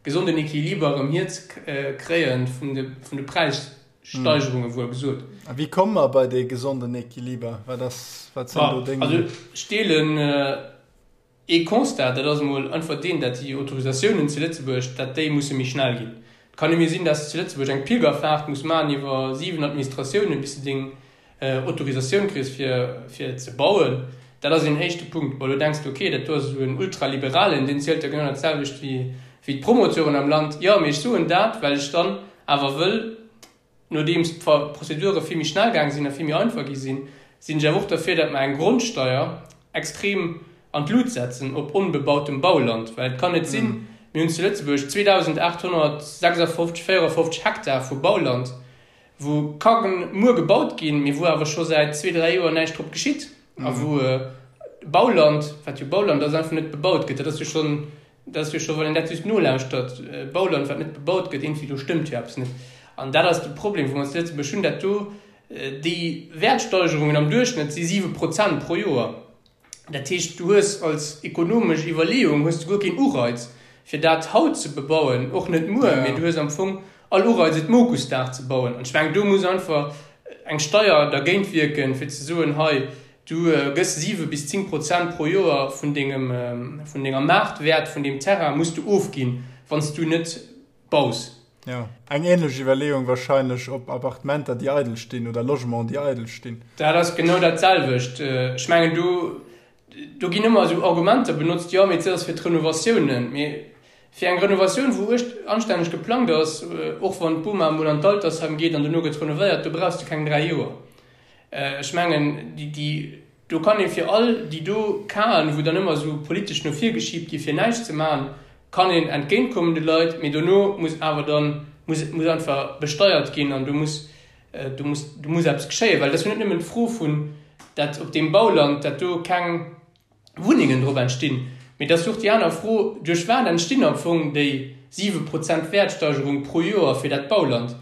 gesonden Equiliber erëm hier ze kréien vun de vun de Präissteigerunge wuel gesot. A wéi komme mer bei dee gesonden Equiliber? Wat ass, wat sinn do deng. Also ech deelen ee Constat, dat ass emol einfach deen, dat déi Autorisatiounen zu Lëtzebuerg, dat déi musse méi schnell ginn. Et kann net méi sinn, dat s de zu Lëtzebuerg eng Pilgerfaart muss maachen iwwer 7 Administratiounen, bis de deng Autorisatioun kriss fir fir ze bauen, dat ass een éischte Punkt. Bon, elo denks de, ok, dat do ass esou en Ultraliberalen, deen zielt jo genau dat selwecht wéi wéi d'Promoteuren am Land. Jo, mee ech soen dat, well ech dann awer wëll, nodeems d'Prozedure vill méi schnell gaang sinn a vill méi einfach gi sinn, sinn ech awer och derfir, datt mer eng Grondsteier extrem an d'Lut setzen op onbebautem Bauland, well et kann net sinn, mir hunn zu Lëtzebuerg 2.856, 54 Hektar vu Bauland, wou ka muer gebaut ginn, mee wou awer scho säit zwee, dräi Joer näischt drop geschitt a wou Bauland, wat jo Bauland ass, einfach net bebaut gëtt. Dat ass jo schonn, dat ass jo scho, wann een dat just nolauschtert, Bauland, wat net bebaut gëtt, iergendwéi do stëmmt jo eppes net. An dat ass de Problem, wou mer zu Lëtzebuerg hunn, dat do déi Wäertsteigerungen am Duerchschnëtt si 7 Prozent pro Joer. Dat heescht, du hues als ekonomesch Iwwerleeung hues de guer keen Ureiz, fir dat haut ze bebauen, och net muer, mee du hues am Fong all Ureiz, et Mokusdag ze bauen. An ech mengen, do muss einfach eng Steier dergéint wierken, fir ze soen, hei, du gëss 7 bis 10 Prozent pro Joer vun dengem, vun denger Maartwäert vun deem Terrain muss du ofginn, wann s du net baus. Jo, eng ähnlech Iwwerleeung wahrscheinlech op Appartementer, déi eidel stinn, oder Logementen, déi eidel stinn. Dat ass genau dat selwecht. Ech mengen, do, do ginn ëmmer esou Argumenter benotzt, jo, mee dat ass fir d'Renovatiounen. Mee fir eng Renovatioun, wou uecht anstänneg geplangt ass, och wann d'Boma emol an d'Altersheim geet an dono gëtt renovéiert, do brauchs de keng 3 Joer. Ech mengen, déi, déi, Do kann ee fir all déi do Casen, wou dann ëmmer esou politesch no vir geschiebt gi fir näischt ze maachen, kann een entgéintkommen de Leit, mee dono muss awer dann, muss, muss einfach besteiert ginn an do muss, do muss, do muss eppes geschéien, well et ass jo net nëmmen d'Fro vun, dat op deem Bauland, dat do keng Wunnengen drop entstinn, mee et ass jo och déi aner Fro, duerch wat entstinn am Fong déi 7 Prozent Wäertsteigerung pro Joer fir dat Bauland?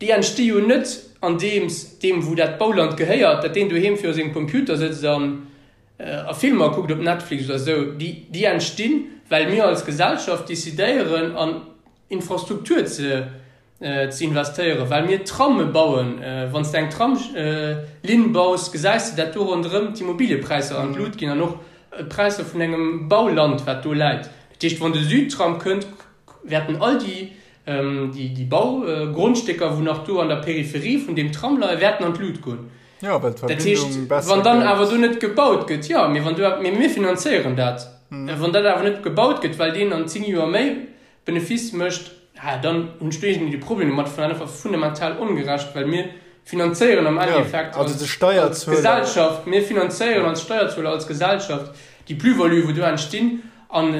Déi entsti jo net andeems deem wou dat Bauland gehéiert, dat deen doheem viru sengem Computer sëtzt an a Filmer kuckt op Netflix oder esou. Déi déi entstinn, well mir als Gesellschaft decidéieren an Infrastruktur ze ze investéieren, well mir Tramme bauen. Wann s de eng Tramslinn baus, gesäis de dat do ronderëm d'Immobiliëpräisser an d'Lut ginn an och d'Präisser vun engem Bauland wat do läit. Dat heescht, wann de Südtram kënnt, wäerten all déi Déi Baugrondstécker, wou nach do an der Peripherie vun deem Tram leien, wäerten an d'Lut goen. Jo, well d'Verbindung besser gëtt. Wann dann awer do net gebaut gëtt, jo, mee wann do, mee mir finanzéieren dat. Wann dat awer net gebaut gëtt, well deen an 10 Joer méi Benefice mécht, dann hunn ech do iergendwéi de Problem domat. Ech fannen dat einfach fundamental ongerecht, well mir finanzéieren am Endeffekt als Gesellschaft, mir finanzéieren als Steierzueler, als Gesellschaft déi Plus-value, wou do entstinn an,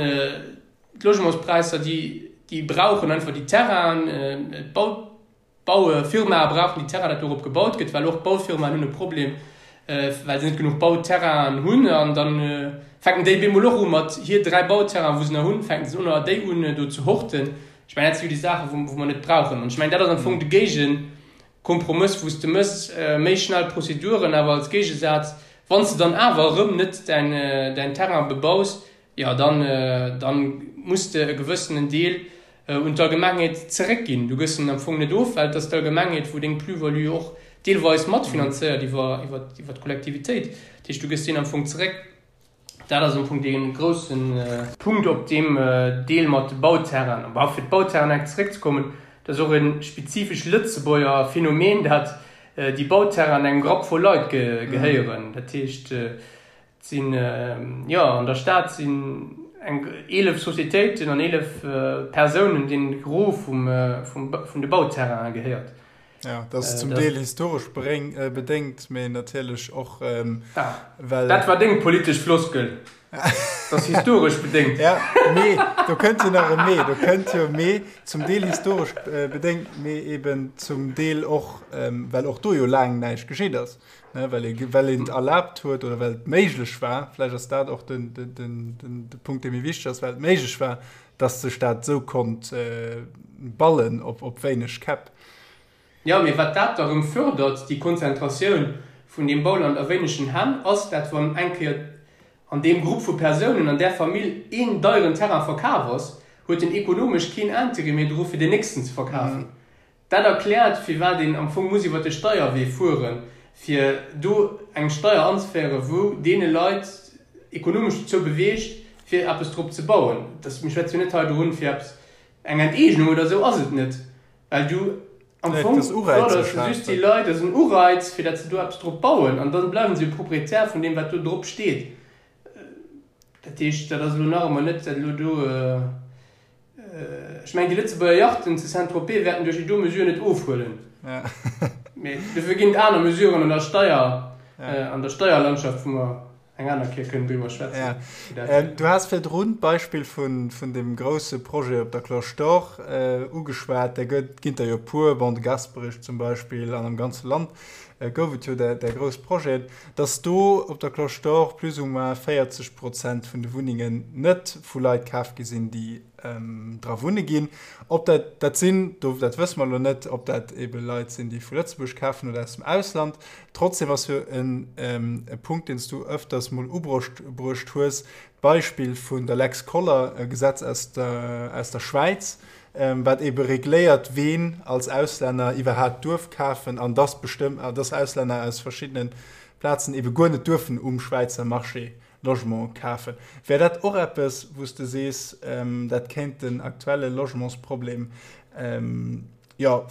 D'Logementspräisser, déi, déi brauchen einfach déi Terrainen, d'Bau, d'Baufirmae brauchen déi Terrainen, dat dorop gebaut gëtt, well och d'Baufirmaen hunn e Problem, well se net genuch Bauterrainen hunn. An da fänken déi bemol och u mat hir 3 Bauterrainen, wou se nach hunn, fänken se un, déi un do ze horten. Ech mengen, dat si jo déi Saachen, wou, wou mer net brauchen. An ech mengen, dat ass am Fong de Géigekompromëss, wou s de mëss, méi schnell Prozeduren, awer als Géigesaz, wann s de dann awer erëm net däin, däin Terrain bebaus, Jo, dann, dann muss de e gewëssenen Deel. un d'Allgemengheet zeréckginn. Du gëss en am Fong net of, well et ass d'Allgemengheet, wou deng Plus-value och deelweis matfinanzéiert iwwer d'Kollektivitéit. Dat heescht, du gëss deen am Fong zeréck. Dat ass am Fong dee grousse Punkt op deem Deel mat de Bauterrainen. Bon, fir d'Bauterrainen enk zeréckzekommen, dat ass och e spezifesch Lëtzebuerger Phänomen, dat déi Bauterrainen engem Grapp vu Leit gehéieren. Dat heescht, et sinn, jo, an der Stad sinn eng 11 Societéiten an 11 Persounen, deenen de Gros vum, vun de Bauterrainen gehéiert. Ja, dat ass zum Deel historesch bedéngt, mee natierlech och, well. Dat war deng politesch Floskel, dat ass historesch bedéngt. Ja, mee do kënnt jo nach e Mee, do kënnt jo e Mee, zum Deel historesch bedéngt, mee eben zum Deel och, well och do jo laang näischt geschitt ass, ne, well ee, well een et erlaabt huet oder well et méiglech war, vläicht ass dat och den, den, den, de Punkt, dee méi wichteg ass, well et méiglech war, dass sech dat esou konnt ballen op, op wéineg Käpp. Jo, mee wat dat da rëm fördert, déi Konzentratioun vun deem Bauland a wéinegen Hänn, ass dat, wann eng Kéier an deem Grupp vu Persounen, an där Famill een deieren Terrain verkaf ass, huet en ekonomesch keen Intérêt méi dru fir deen nächsten ze verkafen. Dat erkläert, firwat een am Fong muss iwwert de Steierwee fueren, fir do eng Steier anzeféieren, wou deene Leit ekonomesch dozou beweegt, fir eppes drop ze bauen. Mir schwätze jo net hei dorun, fir eppes, eng Enteegnung oder esou ass et net, well du am Fong fërders de just déi Leit, dat ass en Ureiz, fir datt se do eppes drop bauen an da bleiwen se jo Proprietär vun deem, wat do drop steet. Dat heescht, dat ass elo nach ëmmer net, dat elo do, ech mengen, déi Lëtzebuerger Yachten zu Saint-Tropez wäerten duerch déi do Mesure net ofhuelen. Mee dofir ginn et aner Mesuren an der Steier, an der Steierlandschaft, wou mer eng aner Kéier kënnen driwwer schwätzen. Ja. Du has virdrun d'Beispill vun, vun deem grousse Projet op der Cloche d'Or ugeschwat. Där gëtt, ginn der jo e puer, bon, de Gasperich zum Beispill, an am ganze Land gouf et jo där, där grouss Projeten, dass do op der Cloche d'Or plus ou moins 40 Prozent vun de Wunnengen net vu Leit kaf gi sinn, déi dra wunne ginn. Ob dat dat sinn, do, dat wësse mer elo net, ob dat ebe Leit sinn, déi vu Lëtzebuerg kafen oder aus dem Ausland. Trotzdem ass jo en e Punkt, deen s du öfters mol ubruecht bruecht hues, d'Beispill vun der Lex Koller, e Gesetz aus der, aus der Schwäiz, wat ebe regléiert, ween als Auslänner iwwerhaapt duerf kafen an dass bestëmm, dass Auslänner aus verschiddene Plazen ebe guer net duerfen um Schwäizer Marché Logement kafen. Wär dat och eppes, wou s de sees, dat kéint den aktuelle Logementsproblem, jo,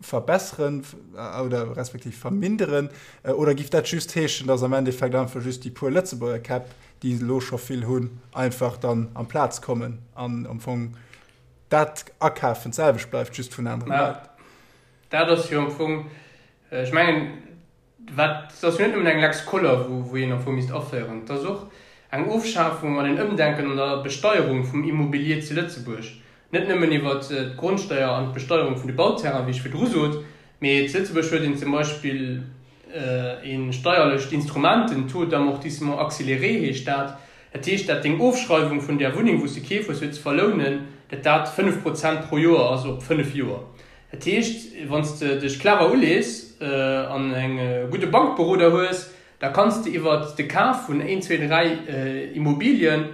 verbesseren oder respektiv verminderen? Oder giff dat just heeschen, dass am Endeffekt einfach just déi puer Lëtzebuerger Käpp, déi elo scho vill hunn, einfach dann amplaz kommen an am Fong dat Akafen d'selwecht bleift, just vun anere Leit? Dat ass jo am Fong, ech mengen, Wat, et ass jo net nëmmen eng Lex Koller, wou een am Fong misst aféieren, et ass och eng Ofschafung an en Ëmdenken an der Besteierung vum Immobilier zu Lëtzebuerg. Net nëmmen iwwert d'Grondsteier an d'Besteierung vun de Bauterrainen, wéi ech virdru sot, mee zu Lëtzebuerg huet een zum Beispill e steierlecht Instrument, den Taux d'amortissement accéléré heescht dat. Dat heescht, dat deng Ofschreiwung vun där Wunneng, wou s de keef hues, fir ze verlounen, dat dat 5 Prozent pro Joer ass op 5 Joer. Dat heescht, wann s de dech clever ulees an e gudde Bankberoder hues, da kanns de iwwert de Kaf vun een, zwee, dräi Immobilien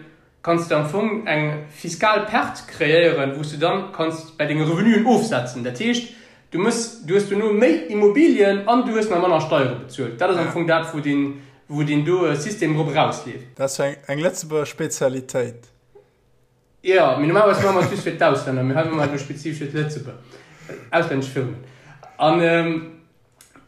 kanns de am Fong eng fiskal Perte kreéieren, wou s de dann kanns bäi denge Revenuen ofsetzen. Dat heescht, du mëss, du hues dono méi Immobilien an du hues nach manner Steiere bezuelt. Dat ass am Fong dat, wou deen, wou deen do System drop erausleeft. Dat ass jo eng Lëtzebuerger Spezialitéit. Jo, mee normalerweis maache mer et just fir d'Auslänner, mee hei maache mer et elo spezifesch fir d'Lëtzebuerger, auslännesch Firmen. An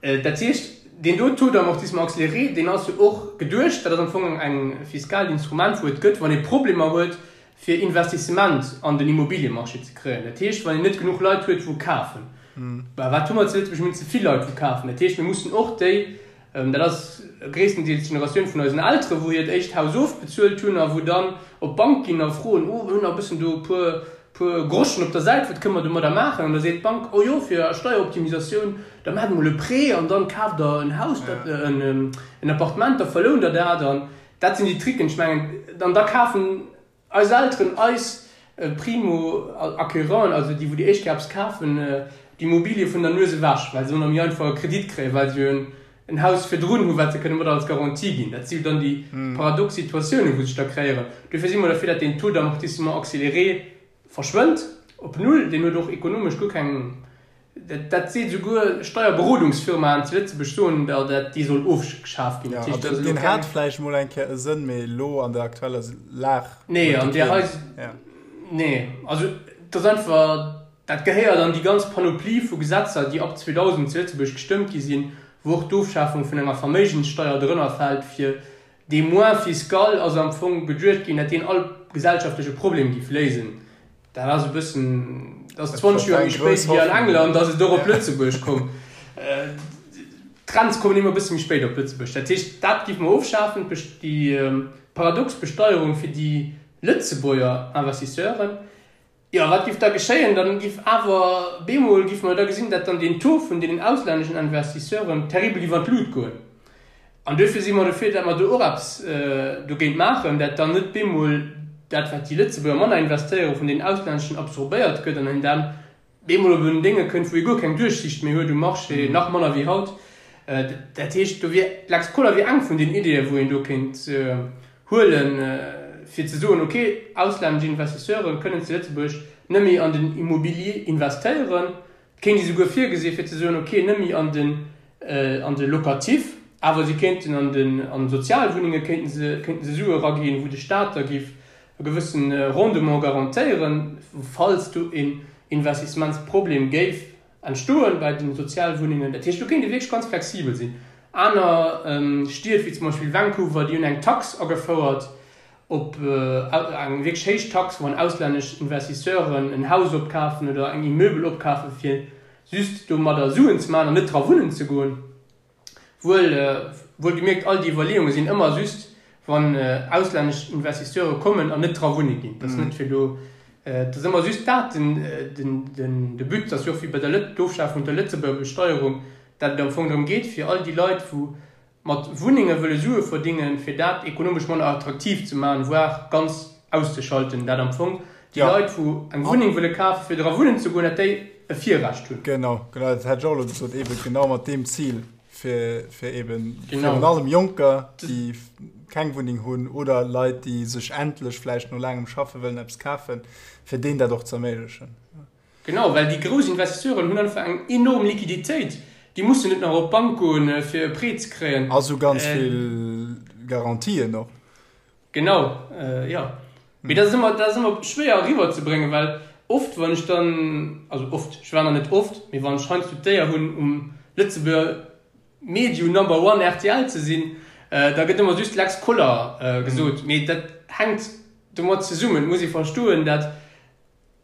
dat heescht, deen do Taux d'amortissement accéléré, deen ass jo och geduecht, dat ass am Fong eng fiskaalt Instrument, wou et gëtt, wann ee Problemer huet, fir Investissement an den Immobiliemarché ze kréien. Dat heescht, wann een net genuch Leit huet, wou kafen. Mä wat hu mer zu Lëtzebuerg? Mir hunn ze vill Leit, wou kafen. Dat heescht, mir mussen och déi, Dat ass gréisstendeels d'Generatioun vun eisen Elteren, wou hiert éischt Haus ofbezuelt hunn a wou dann op d'Bank ginn a froen, Oh, mir hunn nach e bëssen do e puer, puer Groschen op der Säit, wat kënne mer domadder maachen? An da seet d'Bank, Oh jo, fir Steieroptimisatioun, da maacht emol e Prêt an dann kaaft der en Haus, dat, en Appartement, da verlount der dat. An dat sinn déi Tricken. Ech mengen, an da kafen Eis Elteren, eis Primo-Acquéreuren, also déi wou déi éischt Kéier eppes kafen, d'Immobilie vun der Nues ewech, well se ëmmer méi einfach e Kredit kréien, well se jo en Haus virdrun hu wat se kënne mat als Garantie ginn. Dat si jo dann déi paradox Situatiounen, wou sech da kreéieren. Dofir si mer derfir, datt deen Taux d'amortissement accéléré verschwënnt. op null, deen huet och ekonomesch guer keng, dat seet esouguer Steierberodungsfirmaen zu Lëtzebuerg soen der, dat dee soll ofgeschaf ginn. Dat heescht, dat ass elo keng. Deen hat vläicht mol eng Kéier e Sënn, mee elo an der aktueller Lag huet e keen. Nee, also et ass einfach, dat gehéiert an déi ganz Panoplie vu Gesetzer, déi ab 2000 zu Lëtzebuerg gestëmmt gi sinn, wou och d'Ofschafung vun enger Verméigenssteuer drënner fält, fir dee Moins fiscal ass am Fong geduecht ginn, dat deen all gesellschaftleche Problem géif léisen. Dat ass e bëssen, dat ass 20 Joer méi spéit wéi an England ass et och op Lëtzebuerg komm. D'Trends kommen ëmmer e bësse méi spéit op Lëtzebuerg. Dat heescht, dat géife mer ofschafen, déi paradox Besteierung fir déi Lëtzebuerger Investisseuren. Jo, wat giff da geschéien? Dann giff awer bemol giffe mer da gesinn, dat dann deen Taux vun deenen auslänneschen Investisseuren terribel giff an d'Lut goen. An duerfir si mer dofir, dat mer do och eppes dogéint maachen, dat dann net bemol dat, wat déi Lëtzebuerger manner investéieren, vun deenen auslänneschen absorbéiert gëtt an een dann bemol op en Dénge kënnt, wou ee guer keng Duerchsicht méi huet um Marché, nach manner wéi haut. Dat heescht, do wier d'Lex Koller wier eng vun den Ideeën, wou een do kéint huelen, fir ze soen, ok, auslännesch Investisseure kënnen zu Lëtzebuerg net méi an den Immobilier investéieren. Et kéint ee souguer virgesi fir ze soen, ok, net méi an den an de Locatif, awer si kéinten an den an Sozialwunnenge kéinten se kéinten se Sue eraginn, wou de Staat da géif e gewësse Rendement garantéieren, falls do een Investissementsproblem géif entstoen bei den Sozialwunnengen. Dat heescht, do kéint ee wierklech ganz flexibel sinn. Aner Stied, wéi zum Beispill Vancouver, déi hunn eng Tax agefouert op, eng wierklech héich Tax, wann auslännesch Investisseuren en Haus opkafen oder eng Immeubel opkafen, fir just domadder Suen ze maachen an net dra wunnen ze goen. Wuel, wuel gemierkt, all déi Iwwerleeunge sinn ëmmer just, wann auslännesch Investisseure kommen an net dra wunne ginn. Dat ass net fir do, et ass ëmmer just dat den, den, den, de But. Dat ass jo och wéi bei der Lët-, d'Ofschafung der Lëtzebuerger Besteierung, dat et am Fong drëm geet, fir all déi Leit, wou mat Wunnenge wëlle Sue verdingen, fir dat ekonomesch manner attraktiv ze maachen, voire ganz auszeschalten, dat am Fong déi Leit, wou eng Wunneng wëlle kafen, fir dra wunnen ze goen, dat déi e Virrecht hunn. Genau, genau, dat hätt ech och elo gesot, eebe genau mat deem Zil, fir, fir eeben virun allem Jonker, déi keng Wunneng hunn, oder Leit, déi sech endlech vläicht no laangem Schaffe wëllen eppes kafen, fir deenen dat och ze erméiglechen. Genau, well déi grouss Investisseuren hunn einfach eng enorm Liquiditéit. Déi mussen net nach op d'Bank goen, fir e Prêt ze kréien. A sou ganz vill Garantien och. Genau, jo. Mee dat ass ëmmer, dat ass ëmmer schwéier eriwwerzebréngen, well oft, wann ech dann, also oft, ech war nach net oft, mee wann ech heiansdo d'Éier hunn, um Lëtzebuerger Medium Number One rtl ze sinn, da gëtt ëmmer just Lex Koller gesot. Mee dat hänkt domat zesummen, et muss ee verstoen, dat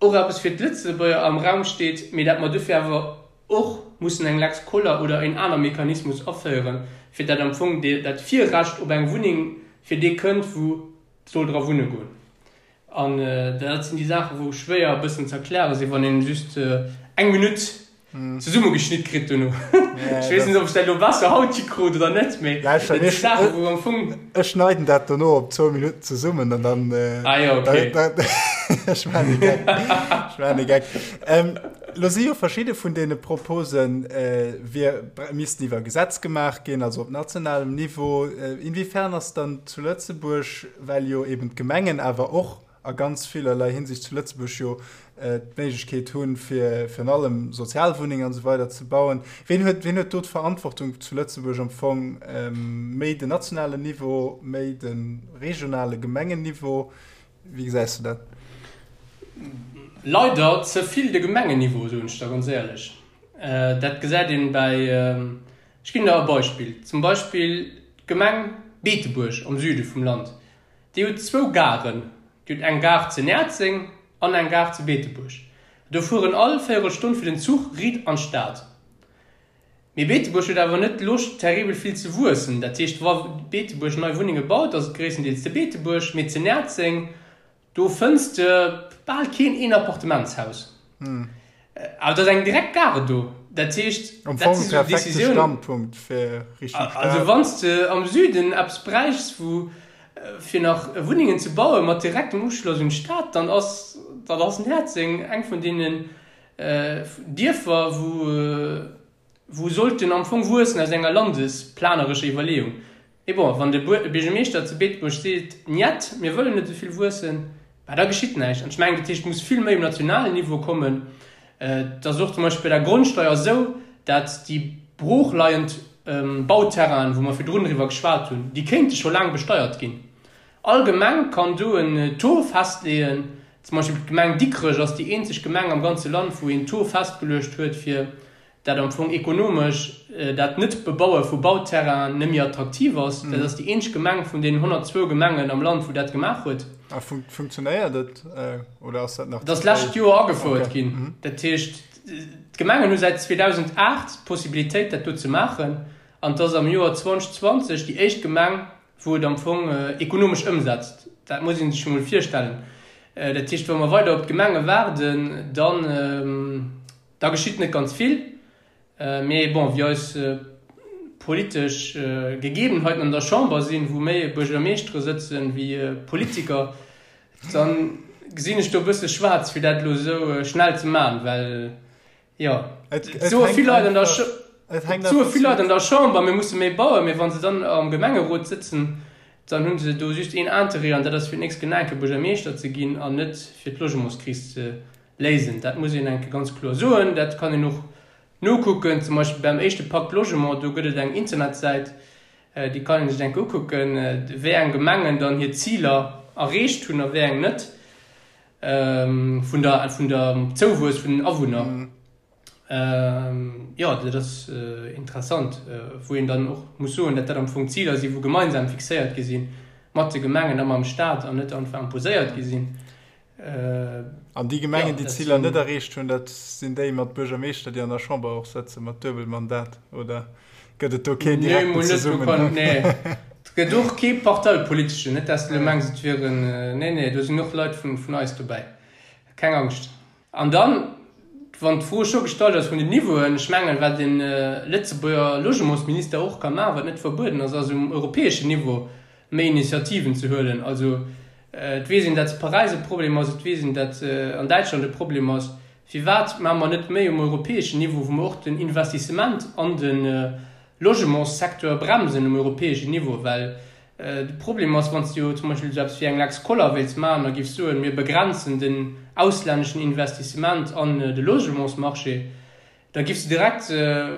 och eppes fir d'Lëtzebuerger am Raum steet, mee dat mer dofir awer och mussen eng Lex Koller oder en aner Mechanismus aféieren, fir dat am Fong dat Virrecht op eng Wunneng fir dee kënnt, wou soll dra wunne goen. An dat sinn déi Saachen, wou schwéier e bëssen ze erkläre sinn, wann een just eng Minutt zesummegeschnitt kritt dono. Ech weess net, ob ech dat elo besser haut hikrut oder net, mee dat si Saachen, wou am Fong. Ech schneiden dat dono op zwou Minutten zesummen an dann. Ah jo, okay. Ech maachen e Geck. Ech maachen e Geck. Lo si jo verschidde vun deene Proposen, wier, missten iwwer Gesetz gemaach ginn, also op nationalem Niveau. Inwiefern ass dann zu Lëtzebuerg, well jo eben d'Gemengen awer och a ganz villerlei Hinsicht zu Lëtzebuerg jo d'Méiglechkeet hunn, fir virun allem Sozialwunnengen an esou weider ze bauen. Ween huet, ween huet do d'Verantwortung zu Lëtzebuerg am Fong? Méi den nationalen Niveau, méi de regionale Gemengenniveau? Wéi gesäis du dat? Leider ze vill de Gemengenniveau, soen ech der ganz éierlech. Dat gesäit een bäi, ech ginn der e Beispill, zum Beispill d'Gemeng Beetebuerg am Süde vum Land. Déi huet zwou Garen. Déi huet eng Gare ze Näerzeng an eng Gare ze Beetebuerg. Do fueren all Véierelstonn fir den Zuch riit an d'Stad. Mee Beetebuerg huet awer net d'Loscht terribel vill ze wuessen. Dat heescht, wa Beetebuerg nei Wunnenge baut, ass et gréisstendeels ze Beetebuerg, mee ze Näerzeng, Do fënns de bal keen Een-Appartementshaus. Awer et ass eng direkt Gare do. Dat heescht, Am dat Fong si sou perfekte Decisiounen. Standpunkt fir Richtung Stad. Also wann s de am Süden eppes bräichs, wou fir nach Wunnengen ze bauen, mat direktem Uschloss un d'Stad, dann ass, dann ass Näerzeng eng vun deenen Dierfer, wou, wou sollten am Fong wuessen aus enger landesplanerescher Iwwerleeung. Mee bon, wann de Buergermeeschter zu Beetebuerg seet, Njet, mir wëllen net esou vill wuessen, Bah, da geschitt näischt. An ech mengen, dat heescht, et muss vill méi um nationalen Niveau kommen. Et ass och zum Beispill bei der Grondsteuer esou, dat déi broochleiend Bauterrainen, wou mer virdrun driwwer geschwat hunn, déi kéinte scho laang besteiert ginn. All Gemeng kann do en Taux festleeën. Zum Beispill d'Gemeng Dikrech ass déi eenzeg Gemeng am ganze Land, wou een Taux festgeluecht huet, fir dat am Fong ekonomesch dat Net-Bebaue vu Bauterrainen net méi attraktiv ass. Dat ass déi eenzeg Gemeng vun deenen 102 Gemengen am Land, wou dat gemaach huet. A funktionéiert et oder ass dat nach ze fréi? Dat ass d'lescht Joer agefouert ginn. Dat heescht, d'Gemengen hu säit 2008 d'Possibilitéit, dat do ze maachen. An et ass am Joer 2020 déi éischt Gemeng, wou et am Fong ekonomesch ëmsetzt. Dat muss ee sech emol virstellen. Dat heescht, wa mer weider op d'Gemenge waarden, dann, Da geschitt net ganz vill, mee bon, wéi eis politesch Gegebenheiten an der Chamber sinn, wou méi Buergermeeschtere sëtzen wéi Politiker, da gesinn ech do e bësse schwaarz, fir dat elo esou schnell ze maachen, well jo, et soe vill Leit an der, et soe vill Leit an der Chamber, mir musse méi bauen, mee wa se dann am Gemengerot sëtzen, dann hu se do just een Interêt, an dat ass fir d'nächst Kéier Buergermeeschter ze ginn an net fir d'Logementskris ze Léisen. Dat muss een eng Kéier ganz kloer soen. Dat kann een och nokucken, zum Beispill beim éischte Pacte Logement, do gëtt et eng Internetsäit, déi kann ee sech eng Kéier ukucken, wéi eng Gemengen dann hir Ziler erreecht hunn a wéi eng net, vun der, vun der Zouwuess vun den Awunner. Jo, dat ass interessant, wou een dann och muss soen, datt dat am Fong Ziler sinn, wou gemeinsam fixéiert gi sinn, mat de Gemengen a mam Stat an net einfach imposéiert gi sinn. An déi Gemengen, déi d'Ziler net erreecht hunn, dat sinn déi mat Buergermeeschter, déi an der Chamber och sëtzen, mat Duebelmandat, oder gëtt et do keen direkten Zesummenhang? Nee, et gëtt och kee parteipoliteschen, net dass de elo mengs, et wieren, nee, nee, do sinn och Leit vun eis dobäi, keng Angscht. An dann, wann d'Fro scho gestallt ass vun den Niveauen, ech mengen, wat e Lëtzebuerger Logementsminister och ka maachen, wat net verbueden ass, ass um europäeschen Niveau méi Initiativen ze huelen. Also et weess een, datt zu Paräis e Problem ass, et weess een, datt an Däitschland e Problem ass. Firwat maache mer net méi um europäeschen Niveau, wou mer och den Investissement an de Logementssecteur bremsen um europäeschen Niveau? Well de Problem ass, wann s de jo zum Beispill esou eppes wéi eng Lex Koller wéilts maachen a giffs soen, mir begrenzen den auslänneschen Investissement an de Logementsmarché, Da giffs de direkt,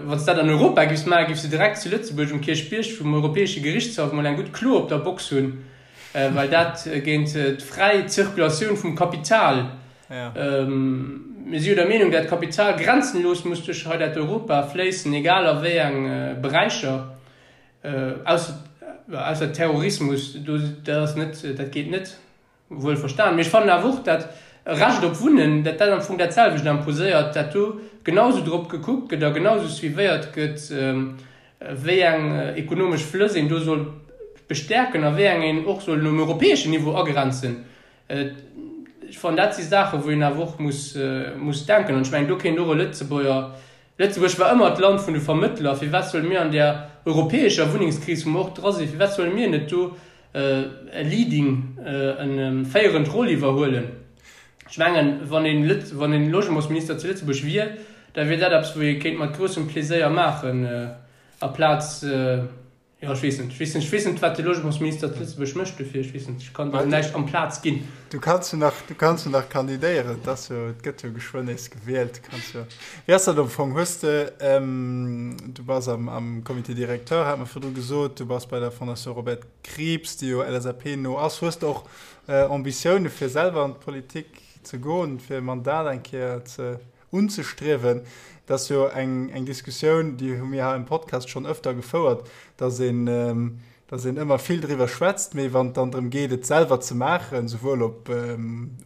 wann s dat an Europa giffs maachen, giffs de direkt zu Lëtzebuerg um Kierchbierg vum Europäesche Gerichtshaff mol eng gutt Klo op der Box hunn, well dat géint d'fräi Zirkulatioun vum Kapital, mir si jo der Meenung, dat Kapital grenzenlos muss duerch hei dat Europa fléissen, egal a wéi eng Beräicher, ausser Terrorismus, do, dat ass net, dat geet net. Wuel verstan, mee ech fannen awer och, dat e Recht op Wunnen, dat dat am Fong dat selwecht imposéiert, dat do genau esou drop gekuckt gëtt a genau esou suivéiert gëtt, wéi eng ekonomesch Flëss een do soll bestäerken a wéi eng een och soll um europäeschen Niveau agrenzen. Ech fannen, dat si Saachen, wou een awer och muss, muss denken. An ech mengen, do kéint och e Lëtzebuerger Lëtzebuerg war ëmmer d'Land vun de Vermëttler. Firwat solle mir an där europäescher Wunnengskris, wou mer och dra sinn, firwat solle mir net do e leading, e féierend Roll iwwerhuelen? Ech mengen, wann een Lëtz, wann een Logementsminister zu Lëtzebuerg wier, da wier dat eppes, wou ee kéint mat groussem Pleséier maachen, aplaz, Jo, ech weess net. Ech weess net, ech weess net, wat de Logementsminister zu Lëtzebuerg mécht dofir. Ech weess net, ech kann der näischt amplaz ginn. Du kanns jo nach, du kanns jo nach kandidéieren. Et ass jo, et gëtt jo geschwënn nees gewielt. Du kanns jo. Wéi ass dat am Fong? Hues de, du bass am, am Comité directeur, hat mer virdru gesot, du bass bei der Fondation Robert Krieps, déi jo LSAP-no ass. Hues de och Ambitioune fir selwer an d'Politik ze goen, fir e Mandat eng Kéier ze unzestriewen. Dat ass jo eng, eng Diskussioun, déi hu mir hei am Podcast schonn ëfter gefouert, dass een, dass een ëmmer vill driwwer schwätzt, mee wann et dann drëm geet, et selwer ze maachen, souwuel op,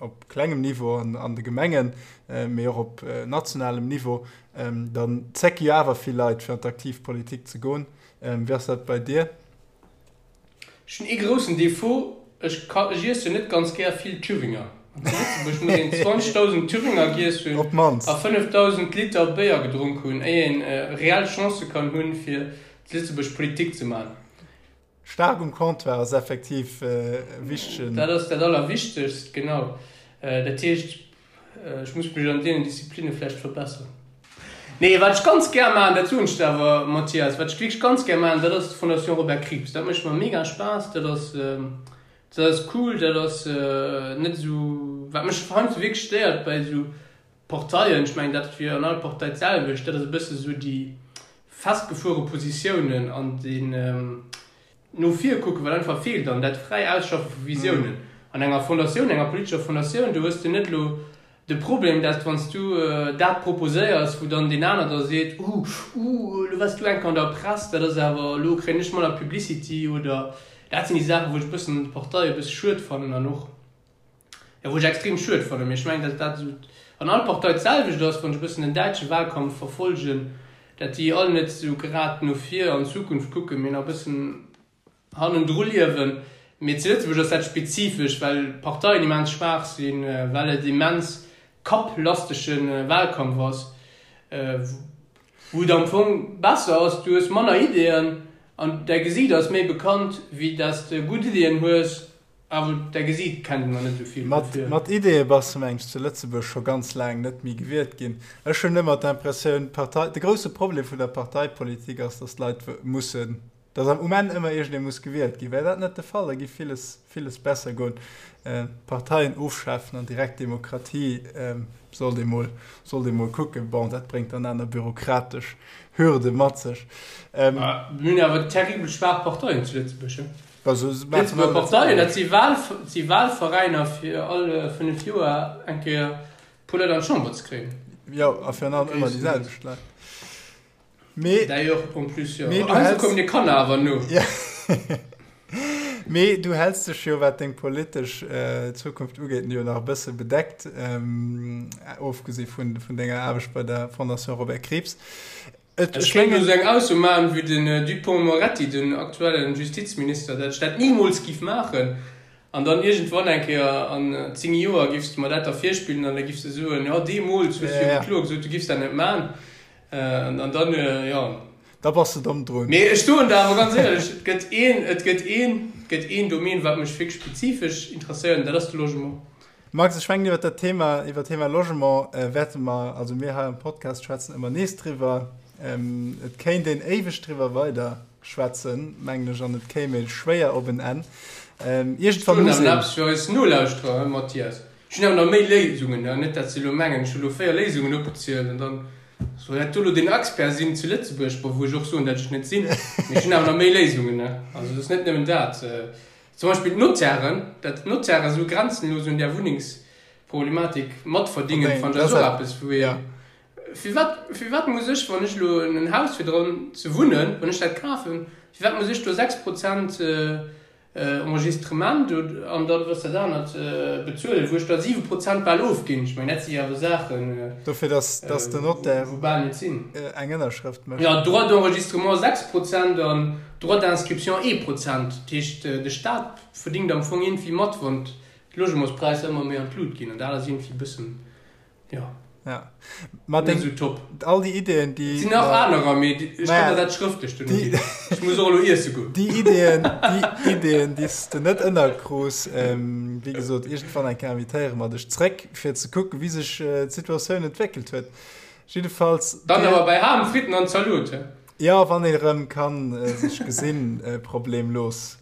op klengem Niveau an, an de Gemengen, mee och op nationalem Niveau, dann zécke jo awer vill Leit, fir an d'aktiv Politik ze goen. Wéi ass dat bei dir? Ech hunn ee groussen Défaut, ech ka, ech iessen net ganz gär vill Thüringer. An zu Lëtzebuerg muss een 20.000 Thüringer giess hunn Op d'mannst. a 5.000 Liter Béier gedronk hunn, éier een reell Chancë kann hunn, fir zu Lëtzebuerg Politik ze man. Staark um Comptoir ass effektiv e wichtegen. Dat ass dat Allerwichtegst, genau. Dat heescht, Ech muss mech an deenen Disziplinne vläicht verbesseren. Nee, wat ech ganz gär maachen, dat soen ech der awer, Mathias, wat ech wierklech ganz gär maachen, dat ass d'Fondation Robert Krieps. Dat mécht mer mega Spaass. Dat ass. Dat ass cool, dat ass net esou, wat mech heiansdo wierklech stéiert bei esou Parteien, ech mengen dat wier an all Partei d'selwecht, dat ass e bësse esou déi festgefuere Positiounen an deen no vir kucken, wat einfach feelt an dat fräi Ausschaffe vu Visiounen. An enger Fondatioun, enger politescher Fondatioun, do hues de net elo De Problem, dat wann s du dat proposéiers, wou dann deen aner da seet, Uh, uh, elo waars du eng Kéier an der Press, dat ass awer, elo kréien ech manner Publicity oder dat sinn déi Saachen, wou ech e bëssen an de Parteie e bësse schued fannen an och, jo, wou ech extrem schued fannen. Mee ech mengen, dat dat esou an all Partei d'selwecht ass, wann ech e bëssen den däitsche Wahlkampf verfolgen, dat déi all net esou grad no vir an d'Zukunft kucken, mee nach e bëssen hannendru liewen. Mee zu Lëtzebuerg ass dat spezifesch, well d'Parteien immens schwaach sinn, well et immens kapplastege Wahlkampf ass, wou et am Fong besser ass, du hues manner Ideeën an däi Gesiit ass méi bekannt, wéi dass de gutt Ideeën hues, awer däi Gesiit kennt een nach net esou vill. Mat, mat Ideeë bass de mengs zu Lëtzebuerg scho ganz laang net méi gewielt ginn. Ech hunn ëmmer d'Impressioun, d'Partei, de grousse Problem vun der Parteipolitik ass, dass d'Leit mussen Dass am um Enn ëmmer iergendee muss gewielt ginn. Wär dat net de Fall, da giff villes, villes besser goen. Parteien ofschafen an direkt Demokratie sollt ee mol, sollt ee mol kucken. Bon, dat bréngt dann aner bürokratesch Hürde mat sech. Mir hunn awer terribel schwaach Parteien zu Lëtzebuerg, he? Lëtzebuerger Parteien, dat si Wahl, si Wahlveräiner fir all 5 Joer eng Kéier puer Leit an d'Chamber ze kréien. Jo, a virun allem ëmmer déi selwecht Leit. Mee, D'ailleurs, en plus, jo. Mee du häls. Kommen dir Kanner awer no. Mee du häls dech jo, wat deng politesch Zukunft ugeet, jo nach e bësse bedeckt, ofgesi vun denger Aarbecht bei der Fondation Robert Krieps. Et, ech mengen. Ech kéint elo sou eng Ausso maachen, wéi den Dupond-Moretti, den aktuellen Justizminister, dat ech dat nimools giff maachen. An dann iergendwann eng Kéier an 10 Joer giffs de mer dat da virspillen an da giffs de soen, jo deemools hues du jo kloer gesot, du giffs dat net maachen. An dann, jo. Da bass de domm drun. Mee ech soen der awer ganz éierlech, et gëtt een, et gëtt een, et gëtt een Domaine, wat mech wierklech spezifesch interesséiert, an dat ass de Logement. Max, ech mengen, iwwer dat Thema, iwwer d'Thema Logement wäerte mer, also mir hei am Podcast schwätzen ëmmer nees driwwer. Et kéint een éiweg driwwer weider schwätzen, mengen ech, an et kéim ee schwéier op en Enn. Iergendwann muss een. Ech hunn awer nach eppes fir eis Nolauschterer, Mathias. Ech hunn awer nach méi Léisungen, net dat se elo mengen, ech hu elo 4 Léisungen opgezielt an dann soll dat do elo den Expert sinn zu Lëtzebuerg, bon, wou ech och soen, dat ech net sinn, mee ech hunn awer nach méi Léisungen. Also et ass net nëmmen dat. Zum Beispill d'Notairen, dat d'Notairen esou grenzenlos un där Wunnengsproblematik matverdingen, fannen ech ass och eppes, wou ee, firwat, firwat muss ech, wann ech elo en Haus fir dran ze wunnen, wann ech dat kafen, firwat muss ech do 6 Prozent Enregistrement an dann was dat anert bezuelen, wou ech da 7 Prozent bal ofginn. Ech mengen, dat si jo awer Saachen, Dofir, dass, dass den Notaire wou bal net sinn. eng Ënnerschrëft mécht. Jo, Droit d'enregistrement 6 Prozent an Droit d'inscription ee Prozent. Dat heescht, de Staat verdingt am Fong iergendwéi mat, wann d'Logementspräisser ëmmer méi an d'Lut ginn. An dat ass iergendwéi e bëssen Jo. Ja. Ma deng, sou top. All déi Ideen, déi. Et sinn nach anerer, mee ech kann der dat schrëftlech duerno ginn. Ech muss och elo iesse goen. Déi Ideen, déi Ideen, déi s de net ënnerkrus, wéi gesot, iergendwann eng Kéier invitéiere mer dech zréck, fir ze kucken, wéi sech d'Situatioun entwéckelt huet. Jiddefalls. Dann awer bei Ham, Fritten an Zalot, he? Jo, wann een erëm kann sech gesinn, problemlos.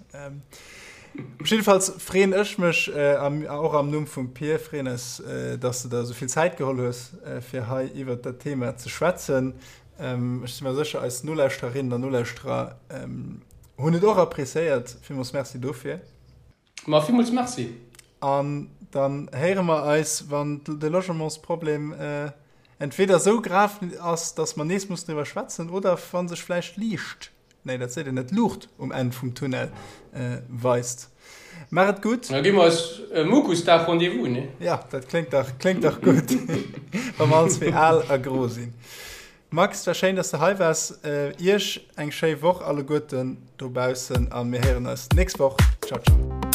Jiddefalls freeën ech mech, och am Numm vum Pir, freeën eis, dass de der esou vill Zäit geholl hues, fir hei iwwert dat Thema ze schwätzen. Ech si mer sécher, eis Nolauschtererinnen an Nolauschterer hunn et och appréciéiert. Villmools Merci dofir. Ma villmools Merci. An dann héiere mer eis, wann de Logementsproblem entweder esou grav ass, dass mer nees mussen driwwer schwätzen, oder wa sech vläicht Liicht Nee, dat seet een net, Luucht um Enn vum Tunnel weist. Maach et gutt. Da gi mer eis e Mukusdag Rendez-vous, nee? Ja, dat kléngt dach, kléngt dach gutt, wa mer all zwee al a gro sinn. Max, et war schéin, dass de hei waars. Iech eng schéi Woch alleguerten dobaussen a mir héieren eis d'nächst Woch. Ciao, ciao.